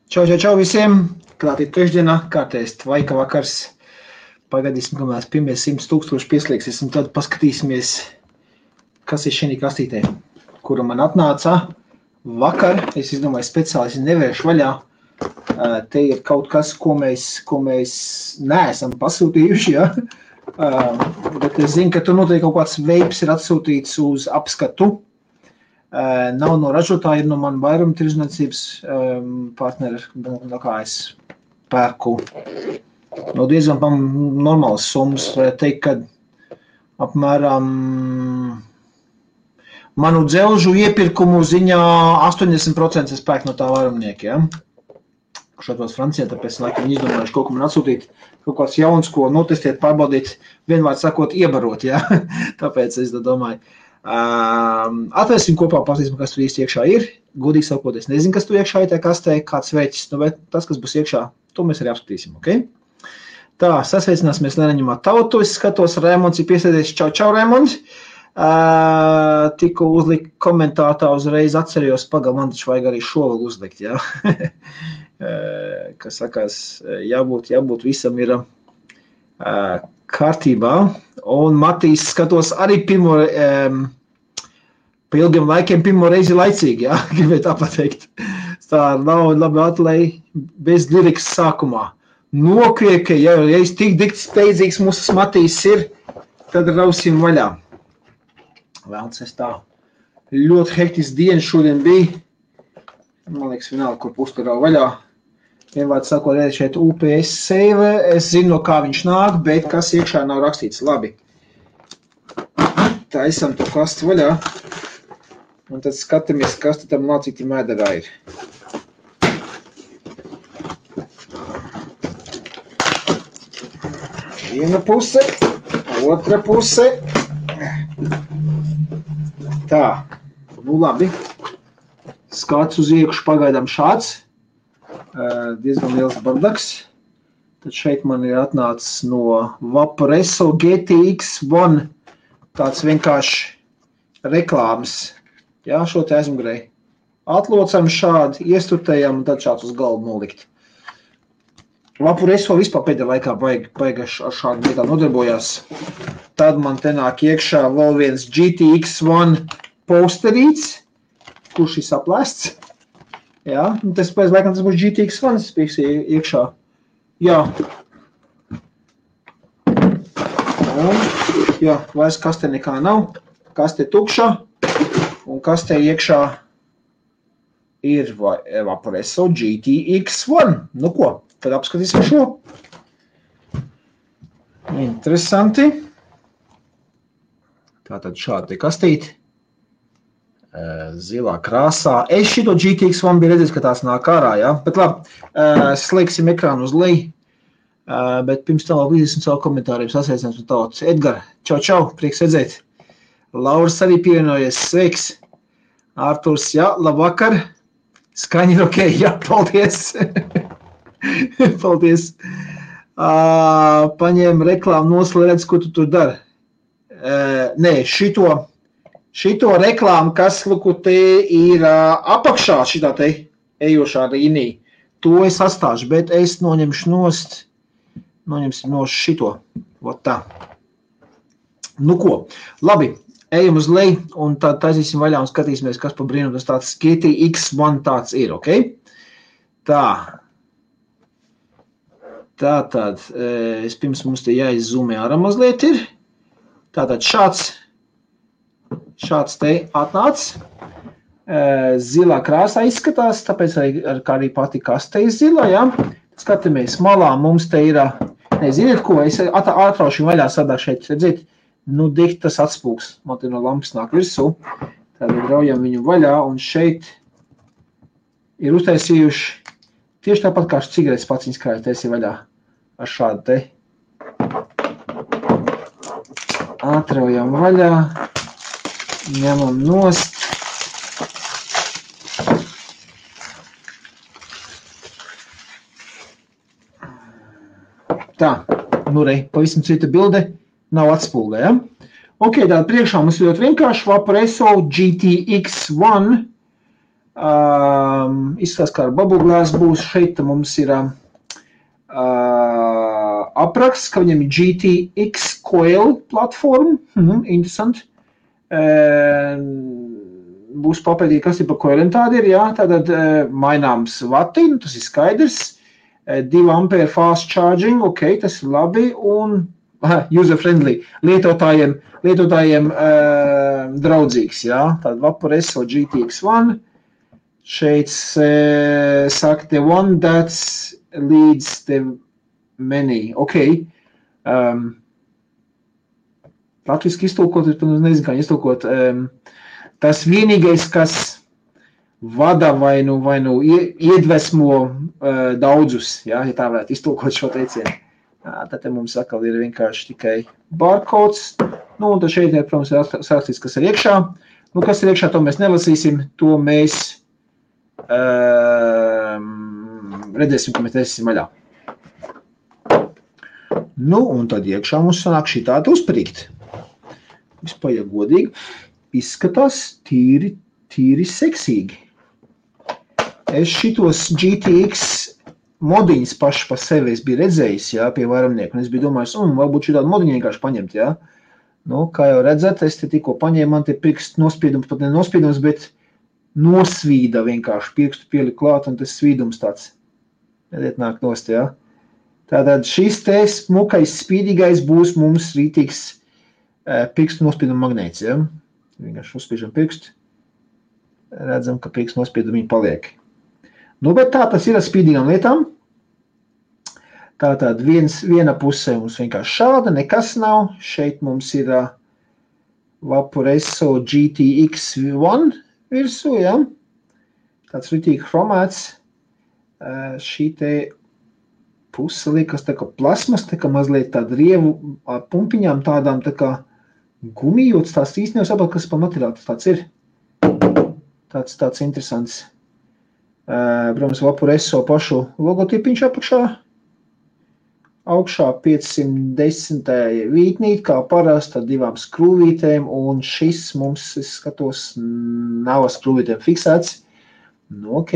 Čau visiem! Klāt ir trešdienā, kārtējs tvaika vakars. Pagaidīsim, kamēr pirmie 100 000 pieslēgsies, un tad paskatīsimies, kas ir šī kastītē, kura man atnāca vakar. Es izdomāju, speciāli nevēršu vaļā. Te ir kaut kas, ko mēs neesam pasūtījuši, ja? Bet es zinu, ka tur noteikti kaut kāds veips ir atsūtīts uz apskatu. Nav no ražotāja, ir no man vairuma tirzniecības partneri, no kā es pērku. No diezgan normālas summas, varētu teikt, ka apmēram manu dzelžu iepirkumu ziņā 80% es pērku no tā vairumnieka, ja? Kurš atrodas Francijā, tāpēc laikam izdomājuši kaut ko man atsūtīt, kaut kāds jauns, ko notestiet, pārbaudīt, vienvārds sakot, iebarot, ja? Tāpēc es domāju. Atvērsim kopā, pasīsim, kas tur īsti iekšā ir. Godīgi sakot, es nezinu, kas tur iekšā ir, tā kastē, kāds veķis, bet tas, kas būs iekšā, to mēs arī apskatīsim, ok? Tā, sasveicināsimies Lēnaņumā tautu, es skatos, Raimonds ir piesēdies, čau, Raimonds. Tikko uzlikt komentātā, uzreiz atcerījos, man taču vajag arī šo vēl uzlikt, jā. Kas sakās, jābūt visam ir kārtībā. Un Matīs skatos arī pa ilgiem laikiem pirmo reizi laicīgi, jā, gribēju tā pateikt. Tā nav labi atlēja bez lirikas sākumā. Nokrieka, ja es tik steidzīgs mūsu Matīs ir, tad rausim vaļā. Vēlns es tā. Ļoti hektisks dienas šodien bija. Man liekas, vienalga, kur pustu rau vaļā. Vienvārds sakot, šeit UPS save, es zinu, no kā viņš nāk, bet kas iekšā nav rakstīts. Labi. Tā esam to kastu vaļā. Un tad skatāmies, kas tam nācīti mēderā ir. Viena puse, otra puse. Tā, nu labi. Skats uz iekšu pagaidām šāds. Diezgan liels bardaks. Tad šeit man ir atnācis no Vaporesso GTX1 tāds vienkārši reklāmas. Jā, šo te aizmugurēji. Atlocam šādi, iestutējam un tad šāds uz galvu nolikt. Vaporesso vispār pēdējā laikā baigi ar šādu lietā nodarbojās. Tad man te nāk iekšā vēl viens GTX1 posterīts, kurš ir saplēsts. Jā, un tas pēc laikam tas būs GTX1, tas pieks iekšā. Jā. Un, jā, vairs kastē nekā nav. Kastē tukša. Un kastē iekšā ir Vaporesso GTX1. Nu ko, tad apskatīsim šo. Interesanti. Tātad šādi kastīti. Zilā krāsā. Es šito GTX1 biju redzējis, ka tās nāk ārā, ja? Bet labi, slēgsim ekrānu uz leju. Bet pirms tam vēl līdzēsim savu komentāriem sasveicināts un tautas. Edgar, čau, prieks redzēt. Lauris arī pievienojies, sveiks. Ārturs, jā, labvakar. Skaņi ir ok, jā, paldies. Paldies. Paņēma reklāmu noslēdz, ko tu tur dari. Nē, šito reklāmu, kas, luku, te ir apakšā šitā te ejošā līnija. To es atstāšu, bet es noņemsim šito. Vot tā. Nu ko, labi. Ejam uz leju un tad taisīsim vaļā un skatīsimies, kas pa brīnumu tas tāds GTX1 tāds ir, ok? Tā. Tātad, pirms mums te jāizzūmē ārā mazliet ir. Tātad šāds te atnāc. Zilā krāsā izskatās, tāpēc arī pati kaste ir zila, ja? Skatāmies, malā mums te ir, neziniet ko, es atraušu vaļā sadā šeit, redziet? Nu, diktas atspūks, man te no lampas nāk virsū, tad raujam viņu vaļā, un šeit ir uztaisījuši tieši tāpat kā cigaretes paciņas krāju taisīja vaļā ar šādu te. Atraujam vaļā, ņemam nost. Tā, nu rei, pavisam cita bilde. Nav atspulgē, ja? Ok, tātad priekšā mums ļoti vienkārši Vaporesso GTX1 Izskatās, kā ar Bubble Glass būs. Šeit mums ir apraksts, ka viņam ir GTX Coil platforma. Interesanti. Būs papētīt, kas ir pa coiliem tādi ir, jā. Tātad maināms vati, tas ir skaidrs. 2 ampere fast charging, ok, tas ir labi. Un user-friendly, lietotājiem draudzīgs, jā. Tātad Vaporesso GTX One. Šeit saka, the one that leads the many. Ok. Latviski iztulkot, es nezinu, kā iztulkot. Tas vienīgais, kas vada vai nu iedvesmo daudzus, jā, ja tā varētu iztulkot šo teicienu. Tad mums atkal ir vienkārši tikai barcodes. Nu, un tad šeit, protams, ir sākstīts, kas ir iekšā. Nu, kas ir iekšā, to mēs nelasīsim, to mēs redzēsim, ka mēs nesim vaļā. Nu, un tad iekšā mums sanāk šī tāda uzprīkt. Vispār, ja godīgi, izskatās tīri seksīgi. Es šitos GTX modiņas paši pa sevi es biju redzējis, jā, pie vairumnieku, un es biju domājis, varbūt šī tādu modiņu vienkārši paņemt, jā. Nu, kā jau redzat, es te tikko paņēmu, man te pirkstu nospiedums, pat ne nospiedums, bet nosvīda vienkārši pirkstu pieliku klāt, un tas svīdums tāds, redziet, nāk nost, jā. Tātad šis te smukais, spīdīgais būs mums rītīgs pirkstu nospieduma magnēts, jā. Vienkārši uzspiežam pirkstu, redzam, ka pirkstu nospiedumi paliek. Nu, bet tā tas ir ar spīdīgām lietām. Tātad viena pusē mums vienkārši šāda, nekas nav. Šeit mums ir Vaporesso GTX One virsū, ja? Tāds ritīgi chromēts. Šī te puse liekas tā kā plasmas, tā kā mazliet tāda rievu pumpiņām tādām tā kā gumijots. Tās īsti nevar kas pa materiāli tāds ir. Tāds interesants. Protams, Vaporesso pašu logotipiņš apakšā. Augšā 510 vītnīt, kā parasti, ar 2 skrūvītēm, un šis mums, es skatos, nav ar skrūvītēm fiksēts. Nu, ok.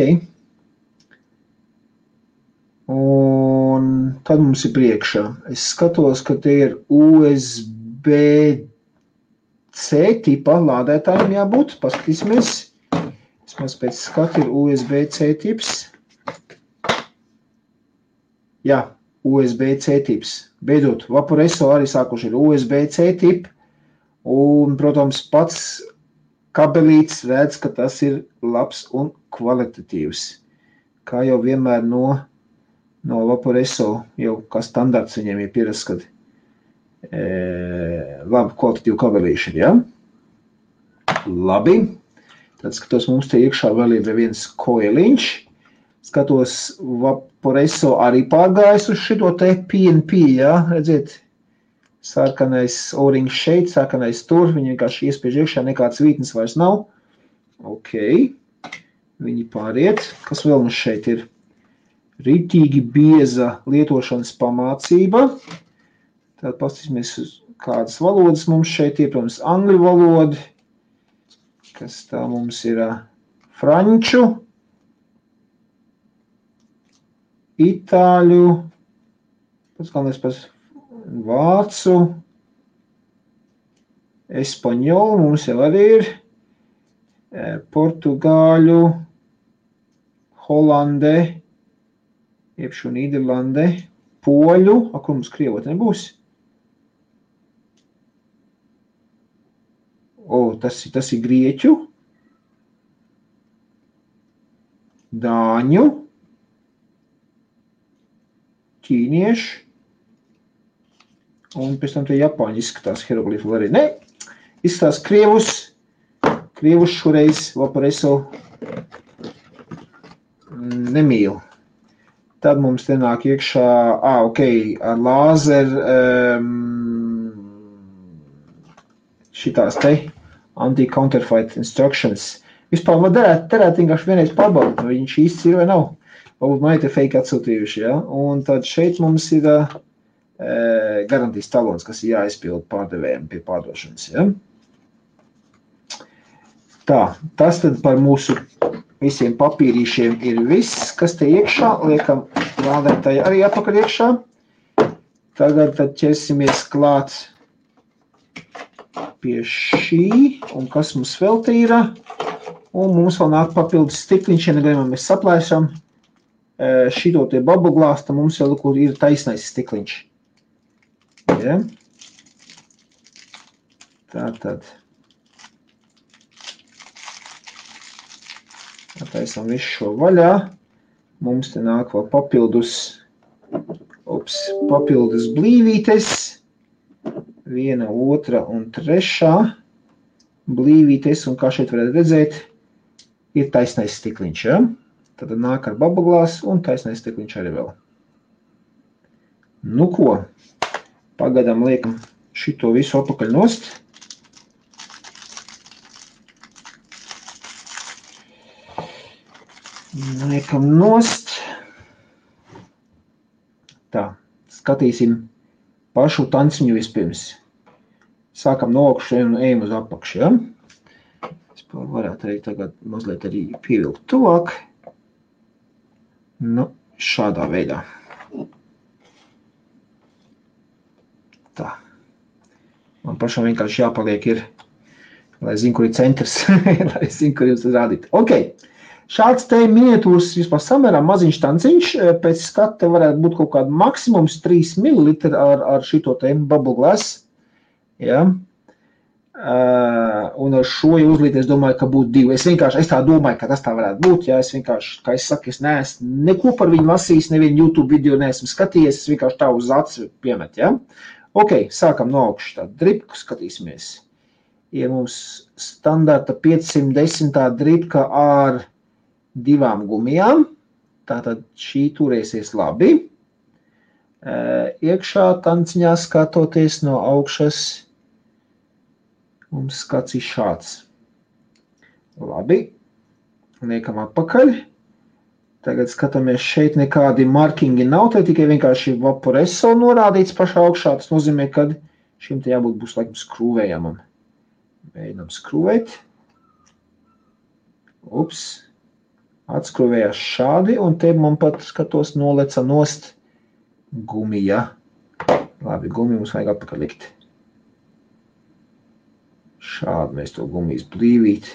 Un tad mums ir priekšā. Es skatos, ka te ir USB-C tipa lādētājiem jābūt. Paskatīsimies. Vismaz pēc skata ir USB-C tips. Jā, USB-C tips. Beidzot, Vaporesso arī sākuši ir USB-C tip. Un, protams, pats kabelīts redz, ka tas ir labs un kvalitatīvs. Kā jau vienmēr no Vaporesso, jau kā standarts viņiem ir pierasts, kad labi kvalitatīvu kabelīšu, ja? Labi. Tad skatos, mums te iekšā vēl ir viens koeliņš. Skatos, Vaporesso arī pārgājis uz šito te PNP, jā, redziet, sarkanais O-rings šeit, sarkanais tur, viņi vienkārši iespiež iekšā, nekāds vītnes vairs nav. Ok, viņi pāriet. Kas vēl mums šeit ir? Ritīgi bieza lietošanas pamācība. Tad pastīsimies, kādas valodas mums šeit ir, protams, angļu valoda. Kas tā mums ir franču, itāļu, pats galvenais pats vācu, espaņolu mums jau arī ir, portugāļu, holande, iepšu Nīderlande, poļu, kur mums krievot nebūs? Tas ir grieķu, dāņu, ķīniešu, un pēc tam te japāņi izskatās hieroglifu arī. Ne, izskatās krievus šoreiz Vaporesso nemīl. Tad mums te nāk iekšā, ok, ar lāzeru šitās te anti-counterfeit instructions. Vispār derētu vienkārši vienreiz pārbaudīt, vai viņš īsts ir vai nav. Varbūt man ir te fake atsūtījuši, ja? Un tad šeit mums ir garantijas talons, kas ir jāizpild pārdevējiem pie pārdošanas, ja? Tā, tas tad par mūsu visiem papīrīšiem ir viss, kas te iekšā. Liekam lādētāji arī atpakaļ iekšā. Tagad tad ķersimies klāt pie šī. Un kas mums vēl te ir? Un mums vēl nāk papildus stikliņš, ja negadījumā mēs saplēšam šito te bubble glass, tad mums vēl ir taisnais stikliņš. Ja? Tātad. Taisam visu šo vaļā. Mums te nāk vēl papildus blīvītes. 1, 2 un 3 blīvītes. Un kā šeit varētu redzēt, ir taisnais stikliņš. Ja? Tad nāk ar bubble glass un taisnais stikliņš arī vēl. Nu ko, pagadam liekam šito visu apakaļ nost. Liekam nost. Tā, skatīsim pašu tanciņu vispirms. Sākam no augšas un ejam uz apakšu, ja? Es varētu arī tagad mazliet arī pievilkt tuvāk. Nu, šādā veidā. Tā. Man pašam vienkārši jāpaliek ir, lai zinu, kur ir centrs, lai zinu, kur jums rādīt. Ok. Šāds te miniatūras vispār samērā maziņš tanciņš, pēc skata varētu būt kaut kāda maksimums 3 ml ar šito te bubble glass. Ja? Un ar šo uzlīt es domāju, ka būtu 2. Es tā domāju, ka tas tā varētu būt. Ja? Es vienkārši, kā es saku, es neesmu neko par viņu lasījis, nevienu YouTube video neesmu skatījies, es vienkārši tā uz acu piemet. Ja? Ok, sākam no augšas tādu dripku, skatīsimies. Ir mums standarta 510 dripka ar 2 gumijām, tātad šī turēsies labi. Iekšā tanciņā skatoties no augšas, mums skats ir šāds. Labi, liekam atpakaļ. Tagad skatāmies, šeit nekādi markingi nav, te tikai vienkārši vaporeso norādīts pašā augšā. Tas nozīmē, ka šim te jābūt būs laikam skrūvējamam. Mēģinām skrūvēt. Ups. Atskrūvējās šādi, un te man pat skatos noleca nost gumija. Labi, gumiju mums vajag atpakaļ likt. Šādi mēs to gumijas blīvīt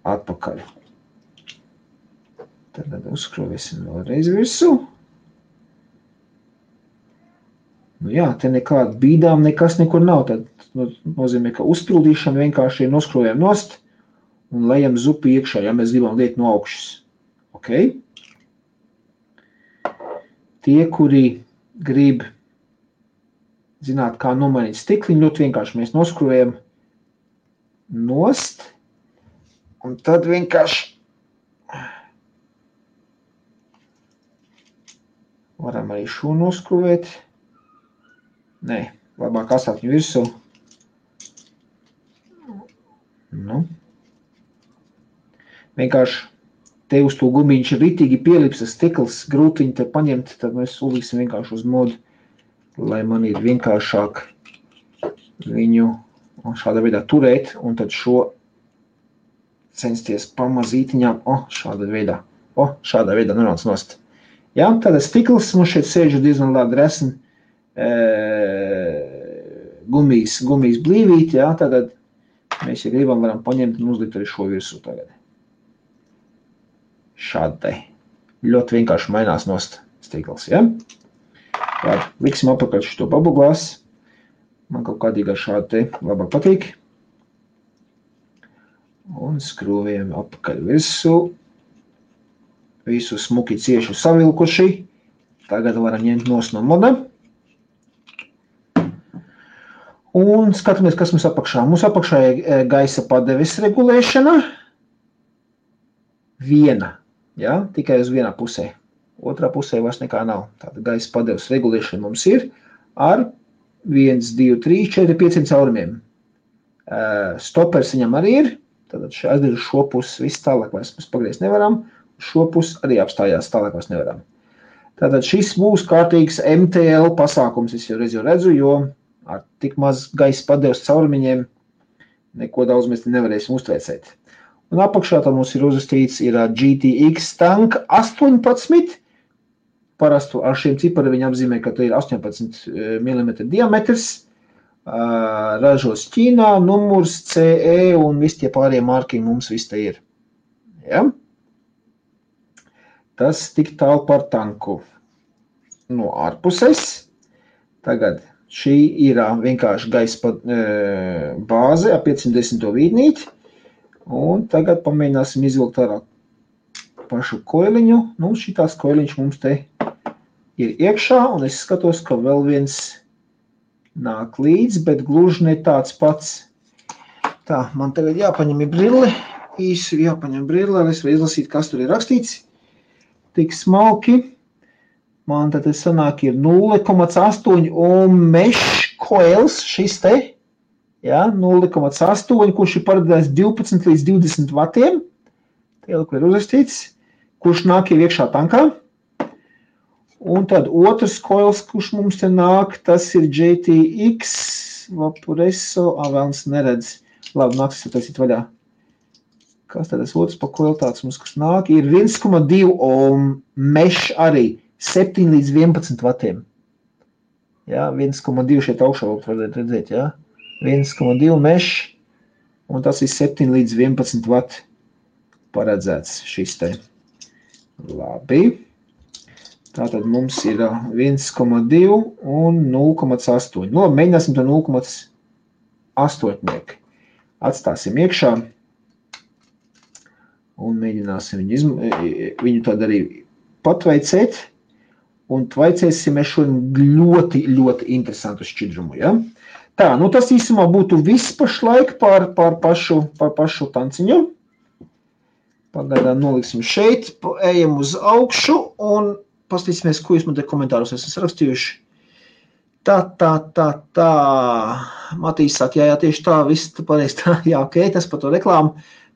atpakaļ. Tad uzskrūvēsim vēlreiz virsū. Nu jā, te nekāda bīdām nekas nekur nav. Tad nozīmē, ka uzpildīšana vienkārši ir noskrūvējam nost un lejam zupu iekšā, ja mēs gribam liet no augšas. Ok? Tie, kuri grib zināt, kā nomainīt stikliņu, ļoti vienkārši mēs noskrūvējam nost, un tad vienkārši varam arī šo noskrūvēt. Nē, labāk asāt viņu virsū. Nu. Vienkārši te uz to gumiņš ir ritīgi pielipsas stikls, grūti viņu te paņemt, tad mēs uzliksim vienkārši uz modu, lai man ir vienkāršāk viņu šādā veidā turēt, un tad šo censties pamazītiņām, šādā veidā nonāc nost. Jā, tāda stikls mums šeit sēž diezgan labi resni gumijas blīvīt, jā, tad mēs, ja gribam, varam paņemt un uzlikt arī šo virsū tagad. Šādai. Ļoti vienkārši mainās nost stikls, ja? Labi, liksim apakaļ šito bubble glass. Man kaut kādīgā šādi te labāk patīk. Un skrūvējam apakaļ virsū. Visu smuki cieši savilkuši. Tagad varam ņemt nost no moda. Un skatāmies, kas mums apakšā. Mums apakšā ir gaisa padeves regulēšana. Viena. Ja, tikai uz vienā pusē. Otrā pusē vairs nekā nav. Tāda gaisa padeves regulēšana mums ir ar 1, 2, 3, 4, 5 caurumiem. Stopers viņam arī ir. Tad aizdir uz šo pusi viss tālāk vairs mēs pagriezt nevaram. Šo pusi arī apstājās tālāk vairs nevaram. Tātad šis būs kārtīgs MTL pasākums, es jau reiz redzu, jo ar tik maz gaisa padeves caurumiņiem neko daudz mēs nevarēsim uztvērsēt. Un apakšā tā mums ir uzrakstīts ir GTX Tank 18. Parastu ar šiem cipariem viņi apzīmē, ka te ir 18 mm diametrs. Ražos Ķīnā, numurs, CE un visi tie pārējie markingi mums viss te ir. Ja? Tas tik tālu par tanku. No ārpuses. Tagad šī ir vienkārši gaisa bāze ar 510 vīdnīti. Un tagad pamēģināsim izvilkt ārā pašu koiliņu. Nu, šitās koiliņš mums te ir iekšā, un es skatos, ka vēl viens nāk līdz, bet gluži ne tāds pats. Tā, man tagad jāpaņem brille, īsi jāpaņem brille, lai es varu izlasīt, kas tur ir rakstīts. Tik smalki. Man tad sanāk ir 0,8 un mesh coils šis te. Ja, 0,8, kurš ir paredzēts 12 līdz 20 vatiem. Tie, kur ir uzrakstīts, kurš nāk jau iekšā tankā. Un tad otrs coils, kurš mums te nāk, tas ir GTX Vaporesso. Vēlns neredz. Labi, nāks taisīt vaļā. Kas tad tas otrs pa coil tāds mums, kas nāk? Ir 1,2 un mesh arī 7 līdz 11 vatiem. Ja, 1,2 šeit augšā varētu redzēt, ja. 1,2 mesh, un tas ir 7 līdz 11 vati paredzēts šis te. Labi. Tātad mums ir 1,2 un 0,8. Nu, mēģināsim to 0,8. Atstāsim iekšā un mēģināsim viņu tad arī patveicēt. Un tvaicēsim šo ļoti, ļoti interesantu šķidrumu, ja? Tā, nu tas īsumā būtu viss pašlaik par pašu tanciņu. Pagaidām noliksim šeit, ejam uz augšu un paskatīsimies, ko jūs man te komentāros esat rakstījuši. Tā. Matīs saka, jā, tieši tā, viss pareizi tā, jā, ok, tas par to reklāmu.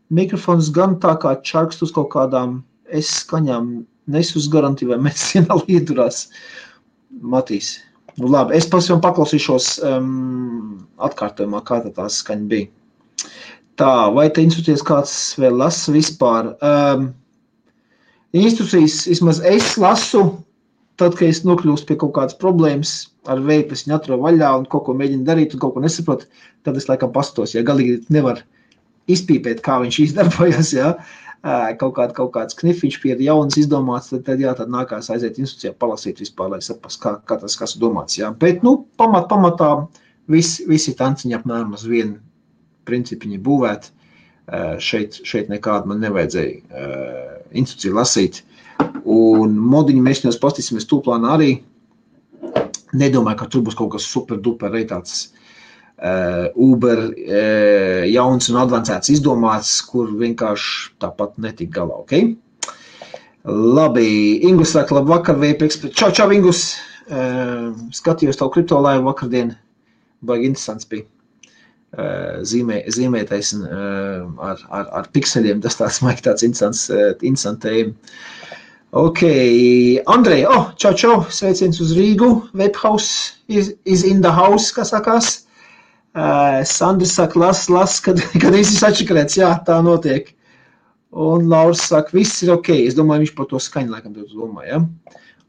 Mikrofons gan tā kā čarkst uz kaut kādām skaņām, nesu uz garantiju, vai medicīnā liedurās. Matīs. Nu labi, es pavisam paklausīšos atkārtojumā, kā tā skaņa bija. Tā, vai te instrukcijas kāds vēl lasa vispār? Instrukcijas, vismaz es lasu, tad, kad es nokļūstu pie kaut kādas problēmas ar veidu, es viņu atrodu vaļā un kaut ko mēģinu darīt un kaut ko nesaprotu, tad es laikam pastos, ja galīgi nevar izpīpēt, kā viņš izdarbojas, ja. Kaut kāds knifiņš pie jaunas izdomāts, tad jā, tad nākās aiziet instrukcijā palasīt vispār, lai saprast, kā tas kas domāts, jā. Bet, nu, pamatā visi tanciņi apmēram uz vienu principiņi būvēt. Šeit nekādu man nevajadzēja instrukciju lasīt. Un modiņu mēs viņos pastīsimies tūplānā arī. Nedomāju, ka tur būs kaut kas super duper reitāts Uber jauns un advancēts izdomāts, kur vienkārši tāpat netik galā, ok? Labi, Ingus saka, labvakar, VPX. Čau, Ingus! Skatījos tavu kripto laivu vakardien. Baigi interesants bija. Zīmētais ar pikseļiem, tas tāds interesants tēma. Ok, Andrej, čau, sveiciens uz Rīgu. Webhouse is in the house, kā sakās. Sandrs saka, las, kad viss ir atšakarēts, jā, tā notiek. Un Lauris saka, viss ir ok, es domāju, viņš par to skaņu laikam domā, ja?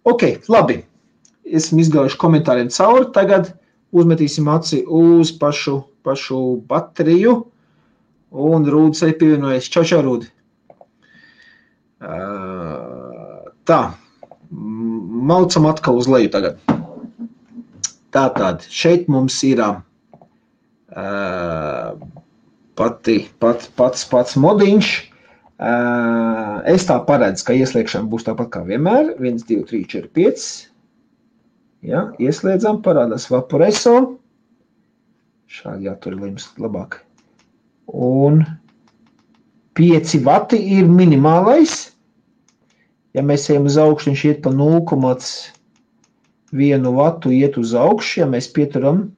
Ok, labi, esam izgājuši komentāriem cauri, tagad uzmetīsim aci uz pašu bateriju, un Rūdis arī pievienojas. Čau, Rūdi. Tā, maucam atkal uz leju tagad. Tātad, šeit mums ir pats modiņš. Es tā paredzu, ka ieslēgšana būs tāpat kā vienmēr. 1, 2, 3, 4, 5. Ja, ieslēdzam, parādās Vaporesso. Šādi jātur ir labāk. Un 5 vati ir minimālais. Ja mēs ejam uz augšu, viņš iet pa 0,1 vatu iet uz augšu. Ja mēs pieturam,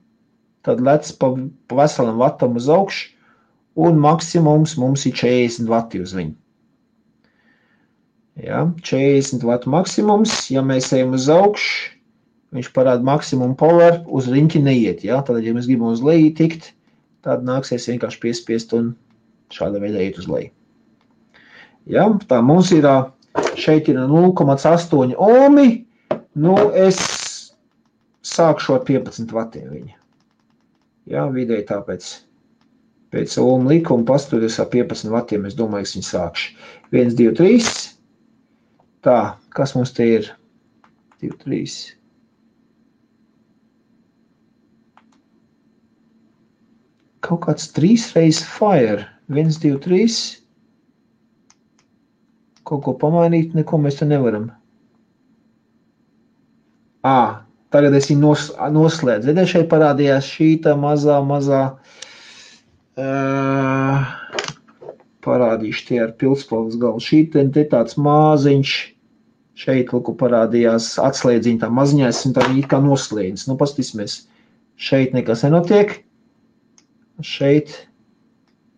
tad lec pa veselam vatam uz augšu. Un maksimums mums ir 40 vati uz viņu. Ja, 40 vatu maksimums. Ja mēs ejam uz augšu, viņš parāda maksimumu power, uz riņķi neiet. Ja? Tad, ja mēs gribam uz leju tikt, tad nāksies vienkārši piespiest un šāda veidā iet uz leju. Ja? Tā mums ir, šeit ir 0,8 ohmi, nu es sākšu ar 15 vatiem viņa. Ja? Vidēji tāpēc pēc ohmu likuma pasturies ar 15 vatiem, es domāju, es viņu sākšu. 1, 2, 3. Tā, kas mums te ir? 2, 3. Kaut kāds 3 reizes fire. 1, 2, 3. Kaut ko pamainīt, neko mēs te nevaram. Tagad es viņu noslēdzu. Ziniet, šeit parādījās šīta mazā, parādīšu tie ar pildspalvas galu. Šīta te tāds maziņš, šeit lūku parādījās atslēdziņa tā maziņais, un tā viņa it kā noslēdzas. Nu, paskatīsimies, šeit nekas nenotiek. Šeit,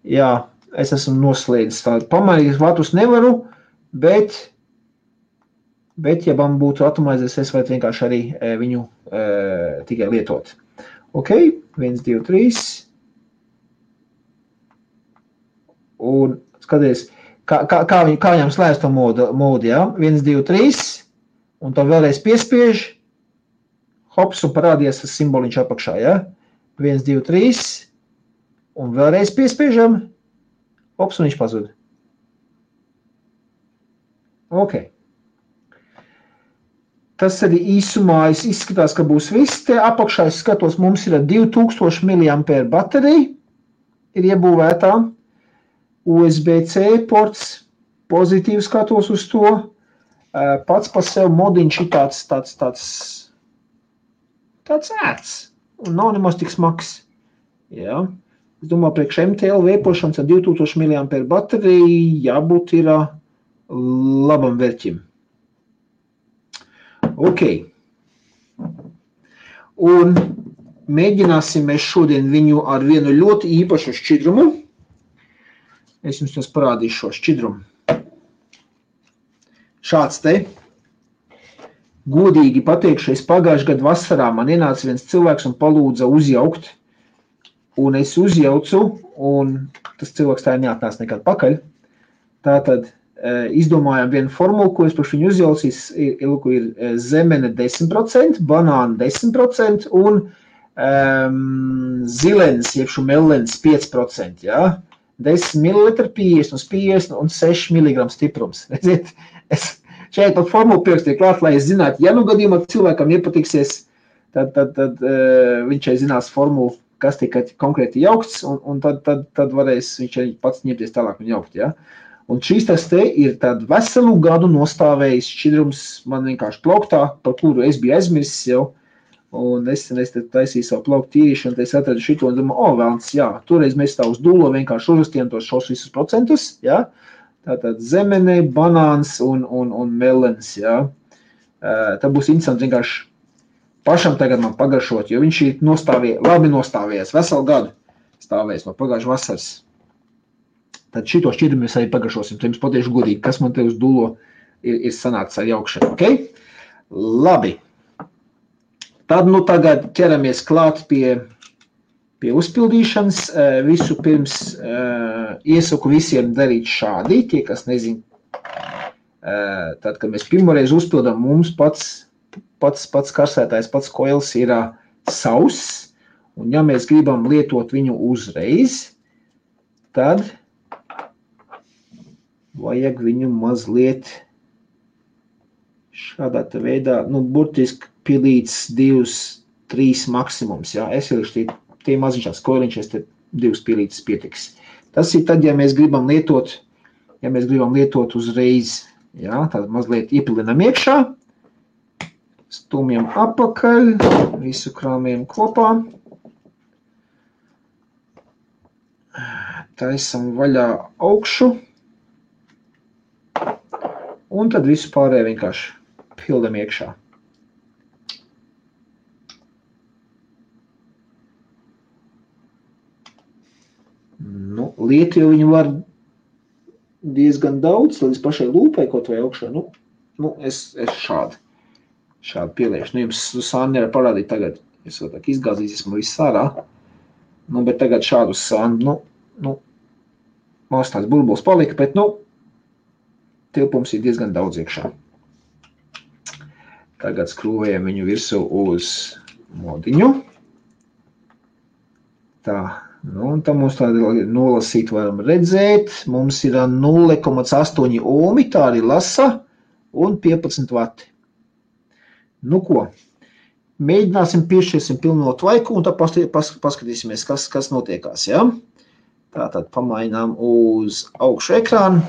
jā, es esmu noslēdzis tādu. Pamainīt vatus nevaru, bet ja man būtu atomizēs, es varētu vienkārši arī viņu tikai lietot. Ok, 1, 2, 3. Un skaties, kā viņam slēdz to modu, ja? 1, 2, 3. Un to vēlreiz piespiež. Hops, un parādījās tas simboliņš apakšā, ja? 1, 2, 3. Un vēlreiz piespiežam. Hops, un viņš pazud. Ok. Tas arī īsumā izskatās, ka būs viss. Te apakšā es skatos, mums ir 2000 mAh baterija, ir iebūvētā. USB-C ports, pozitīvi skatos uz to. Pats par sevi modiņš ir tāds ērts un nav nemaz tik smags. Jā. Es domāju, priekš MTL vēpošanas ar 2000 mAh bateriju jābūt ir labam vērķim. Ok. Un mēģināsim mēs šodien viņu ar vienu ļoti īpašu šķidrumu. Es jums tos parādīšu šo šķidrumu. Šāds te. Godīgi pateikšu, es pagājušajā gadu vasarā man ienāca viens cilvēks un palūdza uzjaukt. Un es uzjaucu, un tas cilvēks tā neatnāca nekad pakaļ. Tātad izdomājām vienu formulu, ko es par viņu uzjaucīs, ir zemene 10%, banāna 10% un zilens, jebšu melens 5%, ja? 10 ml 50 uz 50 un 6 mg stiprums. Redziet, es šeit pat formulu pierakstīju klāt, lai es zinātu, ja nu gadījumā cilvēkam iepatiksies, tad viņš šeit zinās formulu, kas tika konkrēti jaukts, un tad varēs viņš arī pats ņemties tālāk un jaukt, ja? Un šīs tas te ir tādu veselu gadu nostāvējis šķidrums man vienkārši plauktā, par kuru es biju aizmirsis jau. Un es taisīju savu plauktu tīrīšanu, tad es atradu šito un domāju, velns, jā, toreiz mēs tā uz dūlo vienkārši uzrastījām tos šos visus procentus, jā. Tātad zemene, banāns un melens, jā. Tā būs interesanti vienkārši pašam tagad man pagaršot, jo viņš ir labi nostāvējies, veselu gadu stāvējies no pagājušas vasaras. Tad šito šķidrumu mēs arī pagaršosim, tad jums patiešu godīgi, kas man te uz dūlo ir sanācis ar jaukšanu, ok? Labi. Tad nu tagad ķeramies klāt pie uzpildīšanas. Visu pirms iesaku visiem darīt šādi, tie, kas nezin. Tad, kad mēs pirmoreiz uzpildām, mums pats karsētājs, pats koils ir sauss, un ja mēs gribam lietot viņu uzreiz, tad vajag viņu mazliet šādā veidā, nu, burtiski pilīts 2-3 maksimums, jā. Es ielišu tie maziņšās koiliņšies, te 2 pilītes pietiks. Tas ir tad, ja mēs gribam lietot uzreiz, jā, tad mazliet iepilinam iekšā, stumjam apakaļ, visu krāmiem kopā, taisam vaļā augšu, un tad visu pārējo vienkārši pildam iekšā. Nu, lietu jau viņu var diezgan daudz, līdz pašai lūpai kaut vai augšā. Nu es šādi pieliešu. Nu, jums sāni nevar parādīt tagad. Es vēl tā izgāzīsies man viss ārā. Nu, bet tagad šādu sāni, nu, mums tāds burbulis palika, bet, nu, tilpums ir diezgan daudz iekšā. Tagad skrūvējam viņu virsū uz modiņu. Tā, un tā mums tāda nolasīt varam redzēt. Mums ir 0,8 ohmi, tā arī lasa, un 15 vati. Nu ko, mēģināsim piešķirsim pilno tvaiku, un tad paskatīsimies, kas notiekās, ja? Tātad pamainām uz augšu ekrānu.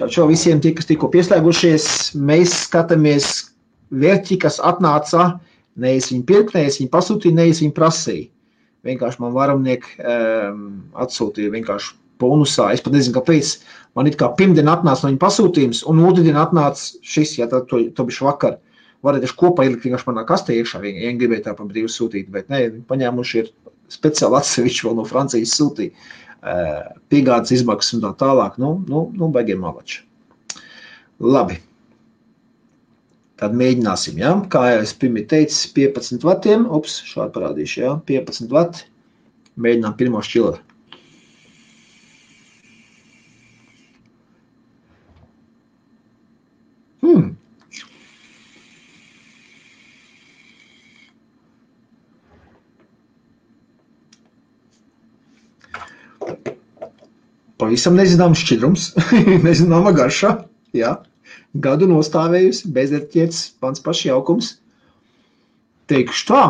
Čau visiem tie, kas tikko pieslēgušies, mēs skatāmies vērķi, kas atnāca, nevis viņi pirkt, nevis viņi pasūtīja, nevis viņi prasīja. Vienkārši man varamnieki atsūtīja vienkārši bonusā, es pat nezinu, kāpēc. Man it kā pirmdien atnāca no viņa pasūtījums, un otrdien atnāca šis, ja tad to bišķi vakar. Varētu kopā ielikt vienkārši manā kastē iekšā, ja gribēja tā pa brīvu sūtīt, bet ne, paņēmuši ir speciāli atsevišķi vēl no Francijas sūtīja. Piegādes izmaksas un tā tālāk, baigiem malači. Labi. Tad mēģināsim, ja? Kā jau es pirmie teicu, 15 vatiem, šādi parādīšu, ja? 15 vati, mēģinām pirmo šķilu. Pavisam nezināms šķidrums, nezināma garša, jā. Gadu nostāvējusi, bezerķietis, pants paši jaukums. Teikšu tā.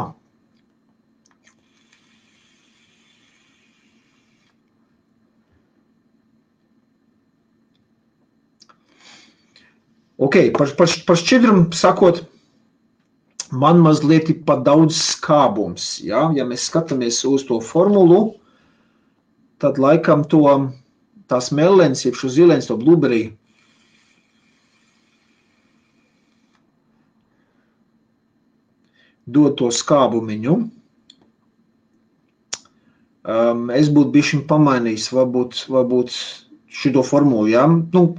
Ok, par šķidrumu sakot, man mazliet ir pa daudz skābums, jā. Ja mēs skatāmies uz to formulu, tad laikam tās melens, jeb šo zilens, to blueberry, dod to skābumiņu. Es būtu bišķiņ pamainījis, varbūt šito formulu, ja?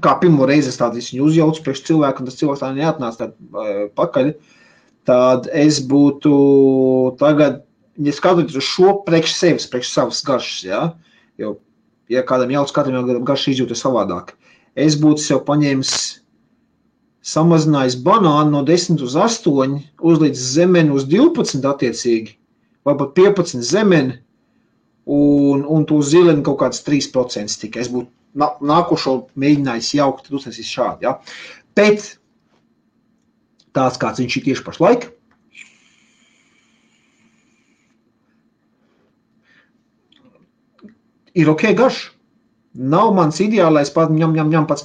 Kā pirmo reizi es tādu viņu uzjaucu priekš cilvēku, un tas cilvēks tā neatnāca pakaļ, tad es būtu tagad, ja skatoties uz šo priekš sevis, priekš savas garšas, ja? Jo, ja kādam jauc, katram jau garši izjūta savādāk. Es būtu sev paņēmis, samazinājis banānu no 10 uz 8, uzlīdz zemeni uz 12 attiecīgi, vai pat 15 zemeni, un to zileni kaut kāds 3% tikai. Es būtu nākošo mēģinājis jaukt, tad uztaisīs šādi, ja. Bet tāds, kāds viņš ir tieši pašlaik, ir ok garš. Nav mans ideālais pats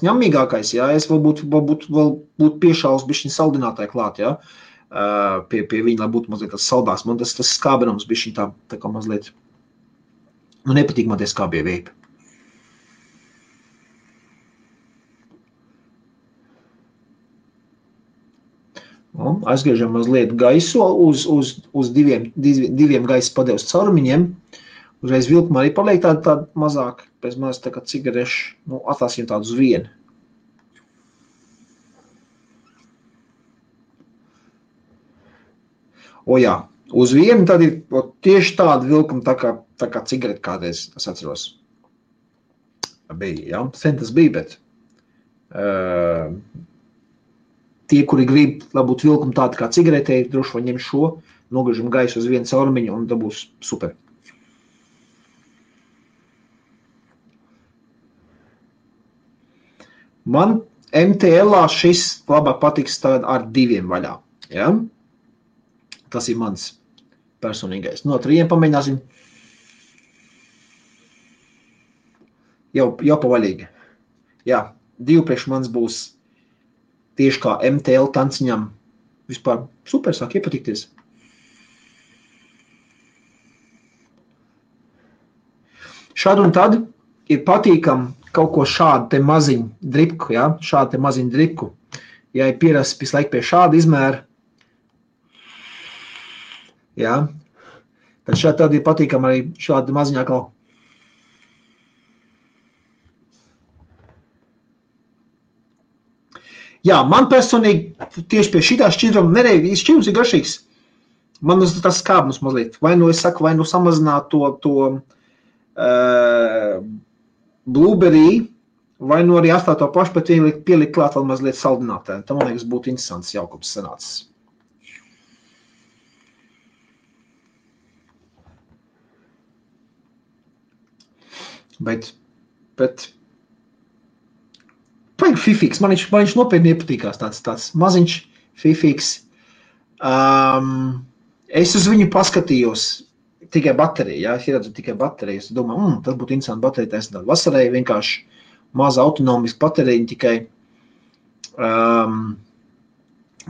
ņemīgākais, ja? Es vēl būtu piešāls bišķiņ saldinātāji klāt, ja? Pie viņa, lai būtu mazliet tas saldās. Man tas skābenums bišķiņ tā kā mazliet, nepatīk man tie skābie veipi. Aizgriežam mazliet gaisu uz diviem gaisa padeves caurumiņiem. Uzreiz vilkuma arī paliek tāda mazāk, pēc maz tā kā cigareši, atlasījam tādu uz vienu. Jā, uz vienu tad ir tieši tāda vilkuma tā kā cigareti kādreiz, es atceros. Bija, ja? Sen tas bija, bet tie, kuri grib, lai būtu vilkuma tāda kā cigaretē, droši vai ņem šo, nogriežam gaisu uz vienu caurumiņu un tā būs super. Man MTL-ā šis labāk patiks ar 2 vaļā. Ja? Tas ir mans personīgais. No 3 pamēģināsim. Jau pavaļīgi. Jā, 2 priekš mans būs tieši kā MTL tanciņam. Vispār super, sāk iepatikties. Šad un tad ir patīkam kaut ko šādu te maziņu dripku, ja? Šādu te maziņu dripku. Ja ir pierasts visu laiku pie šāda izmēra, ja? Tad šādi tad ir patīkam arī šāda maziņā kaut. Jā, man personīgi tieši pie šitā šķidruma nereiz šķidrums ir garšīgs. Man tas skābums mazliet. Vai nu es saku, vai nu samazināt to blueberry Vai nu arī atstāt to pašu, bet pielikt klāt vēl mazliet saldinātē. Tam, man liekas, būtu interesants jaukums sanācis. Bet paigi fifīgs. Man viņš nopietni iepatīkās tāds maziņš fifīgs. Es uz viņu paskatījos tikai bateriju, ja? Es ieredzu tikai bateriju. Es domāju, tas būtu interesanti baterija taisnāt. Vasarai vienkārši maza autonomiska baterija tikai.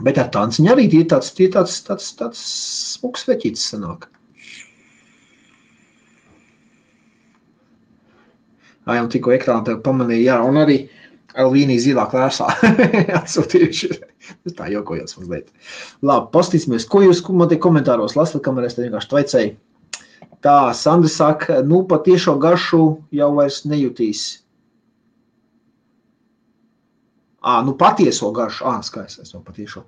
Bet ar tanciņu arī tie tāds smuks veķītis sanāk. Un tikko ekrānā tev pamanīja, jā, un arī Elvīnija zilā klērsā atsūtījuši. Tā jokojās mazliet. Labi, pastīsimies, ko jūs man te komentāros lasat, kamēr es te vienkārši tvaicēju. Tā, Sandra saka, patiešo garšu jau vairs nejutīs. Patieso garšu. Skaisti, es to patiešo.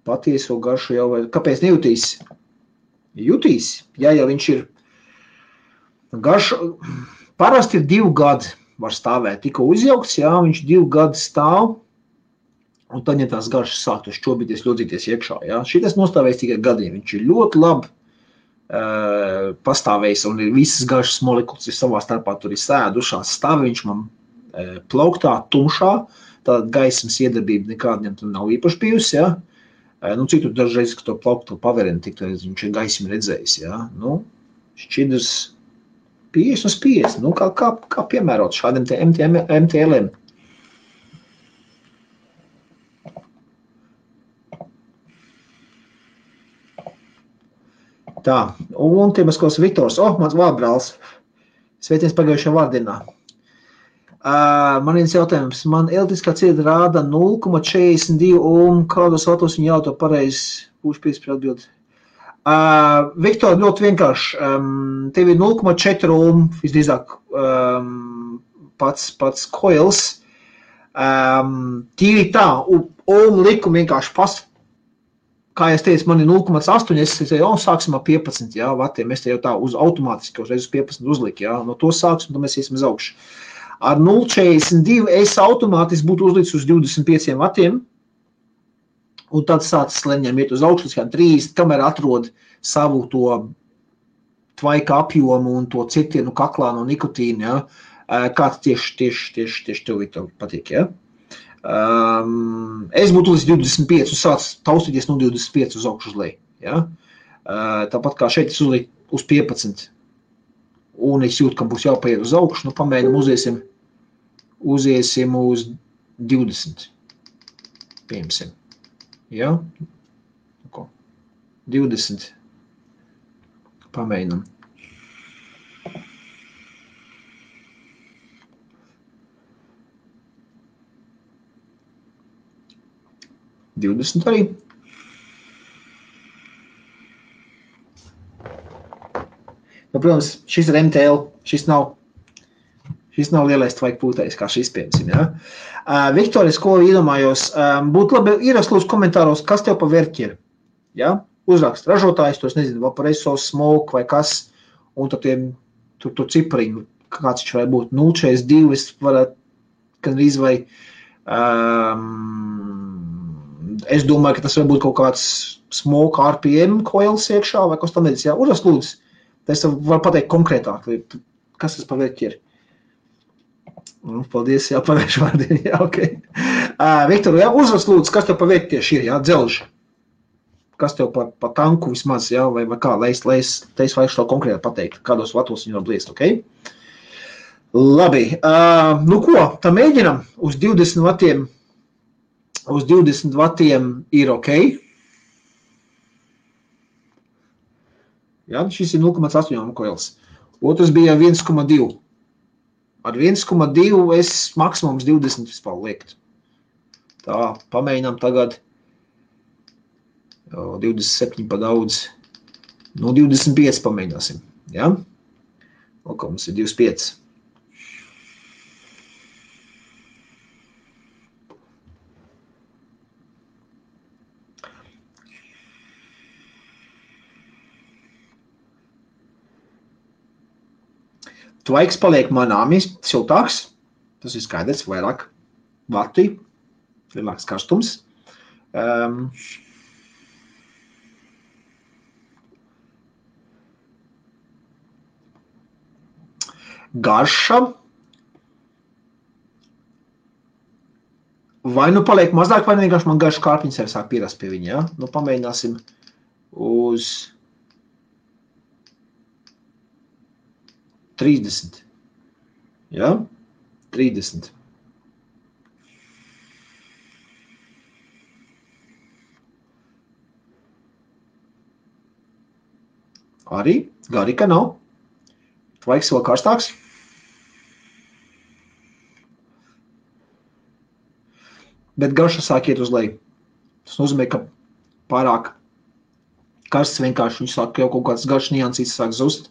Patieso garšu jau vairs. Kāpēc nejutīs? Jutīs, ja viņš ir garšu. Parasti ir 2 gadi var stāvēt. Tikko uzjaukts, jā, viņš 2 gadi stāv, un tad, ja tās garšas sāktu šķobīties, ļodzīties iekšā, jā. Šitas nostāvēs tikai gadiem. Viņš ir ļoti labi pastāvējis, un ir visas garšas molekulas ir savā starpā, tur ir sēdušās stāvi, viņš man plauktā, tumšā, tāda gaismas iedarbība nekādiem tur nav īpaši bijusi, jā. Cik tur dažreiz, ka to plauktu paverina, tik viņš ir gaismi redzējis, jā. Šķidrs 50 uz 50, kā piemērot šādiem MTL-iem. Tā, un Tiemaskos Viktors, mans vārbrāls, sveiciens pagājušajā vārdienā. Man viens jautājums, man elektriskā cieta rāda 0,42 ohm, kādos vatos viņa jauto pareizi, būšu par atbildi. Viktor, ļoti vienkārši, tev ir 0,4 ohm, visdrīzāk pats coils. Tīri tā, ohm likumi vienkārši kā es teicu, man ir 0,8, es teicu, sāksim ar 15 vatiem, es te jau tā uz automātiski uzreiz uz 15 uzliku, no to sāksim, tad mēs iesim uz augšu. Ar 0,42 es automātiski būtu uzlicis uz 25 vatiem, un tad sācis leņiem iet uz augšu, līdz 30, kamēr atrod savu to tvaika apjomu un to citienu kaklā no nikotīna, kāds tieši tev patīk, Es būtu līdz 25 un sāc taustīties no 25 uz augšu uz leju, Tāpat kā šeit es uzliku uz 15, un es jūtu, ka būs jāpaiet uz augšu, pamēģinam uziesim uz 20, piemēram. 20. Pamēģinam. Arī. Protams, šis ir MTL, šis nav lielais tvaika pūtējs, kā šis piemēram, Viktoris, ko iedomājos, būtu labi ierakst lūdzu komentāros, kas tev pa vērķi ir, Uzrakst ražotājs, to es nezinu, Vaporeso, Smoke vai kas, un tad tur cipariņu, kāds viņš varētu būt 0,42, es varētu, gandrīz vai, es domāju, ka tas var būt kaut kāds Smoke RPM coils iekšā, vai kas tam nedis, uzrakst lūdzu, es varu pateikt konkrētāk, kas tas pa vērķi ir. Paldies, pagājuši vārdien, ok. Viktor, uzrakst lūdzu, kas tev pa vērķi tieši ir, dzelži. Kas tev pa tanku vismaz, vai kā, lai es vajag šo konkrēti pateikt, kādos vatos viņi var bliest, ok? Labi, ko, tā mēģinam uz 20 vatiem, ir ok. Šis ir 0,8 koils. Otrs bija 1,2. Ar 1,2 es maksimums 20 vispār liekt. Tā, pamēģinām tagad. 27 pa daudz. 25 pamēģināsim. Kā mums ir 25. Tvaiks paliek manāmi siltāks. Tas ir skaidrs, vairāk vati, lielāks karstums. Garša. Vai nu paliek mazāk, vai vienkārši man garša kārpiņas arī sāk pierast pie viņa, ja? Nu, pamēģināsim uz 30. Ja? 30. Arī garika nav. Tvaiks vēl karstāks. Bet garša sāk iet uz leju. Tas nozīmē, ka pārāk karsts vienkārši viņš sāk jau kaut kāds garšs niansīts sāk zust.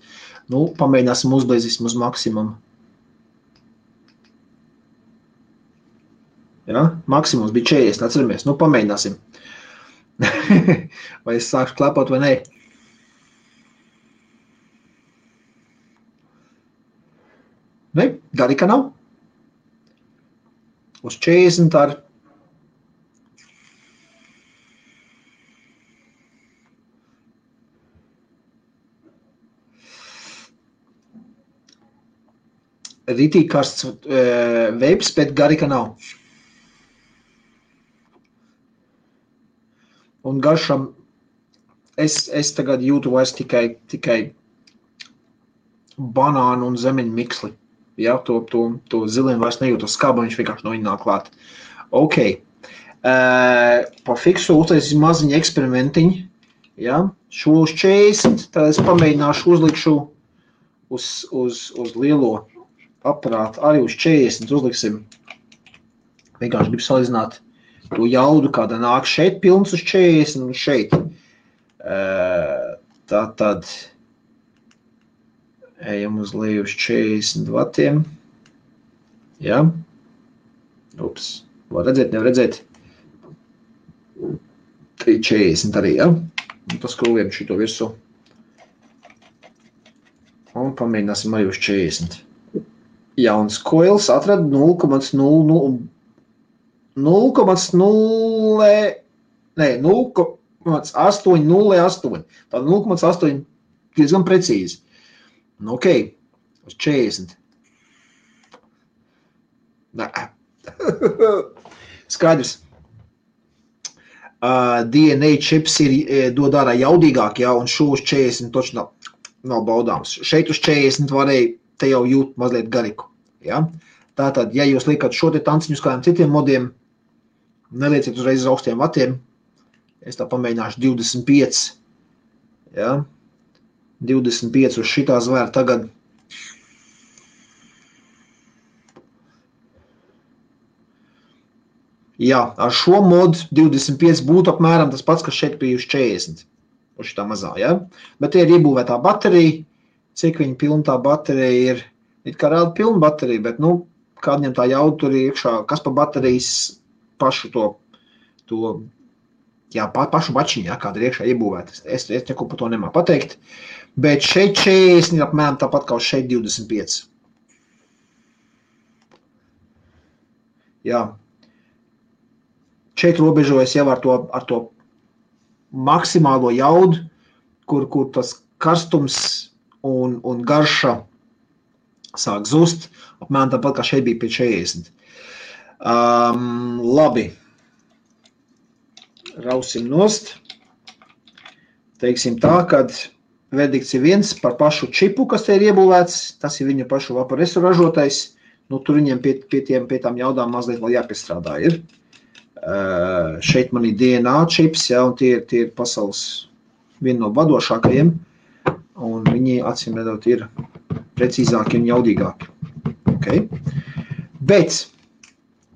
Nu, pamēģināsim uzblēzīsim uz maksimumu. Ja? Maksimums bija 40, atceramies. Nu, pamēģināsim. Vai es sākšu klepot vai nē? Ne, garika nav. Uz 40 ar ritīgi karsts veips, bet garika nav. Un garšam es tagad jūtu vairs tikai banānu un zemeņu miksli. Ja, to ziliem vairs nejūtu skābu, viņš vienkārši no viņa nāk klāt. Ok. Pa fiksu uztaisīsim maziņu eksperimentiņu. Ja, šo uz 40, tad es pamēģināšu uzlikšu uz lielo aparātu, arī uz 40 uzliksim. Vienkārši gribu salīdzināt to jaudu, kāda nāk šeit pilns uz 40 un šeit. Tātad ejam uz leju uz 40 vatiem. Ja? Ups, var redzēt, nevar redzēt. 40 arī, ja? Un paskrūviem šito virsū. Un pamēģināsim arī uz 40. Jauns koils atrada 0,008. Tā 0,8 diezgan precīzi. Nu, ok, uz 40. Nē. Skaidrs. DNA čips dod ārā jaudīgāk, ja, un šo uz 40 toči nav baudāms. Šeit uz 40 varēja te jau jūt mazliet gariku. Ja? Tātad, ja jūs liekat šo te tanciņu uz kādiem citiem modiem, nelieciet uzreiz uz augstiem vatiem. Es tā pamēģināšu 25. Ja? 25 uz šitā zvēra tagad. Jā, ar šo modu 25 būtu apmēram tas pats, kas šeit bija uz 40. Uz šitā mazā, ja? Bet te ir iebūvētā baterija. Cik viņa pilna tā baterija ir, it kā rāda pilna baterija, bet, nu, kādiem tā jauda tur ir iekšā, kas pa baterijas pašu pašu bačiņu, ja, kāda ir iekšā iebūvēta. Es neko par to nemāku pateikt, bet šeit 40 ir apmēram tāpat kā uz šeit 25. Jā. Šeit robežojas jau ar to maksimālo jaudu, kur tas karstums un garša sāk zust, apmēram tāpat kā šeit bija pie 40. Labi. Rausim nost. Teiksim tā, kad verdikts ir viens par pašu čipu, kas te ir iebūvēts, tas ir viņu pašu vaporesu ražotais, nu tur viņiem pie tām jaudām mazliet vēl jāpiestrādā ir. Šeit man ir DNA čips, ja, un tie ir pasaules viena no vadošākajiem. Un viņi acīm redzot ir precīzāki un jaudīgāki. Okay. Bet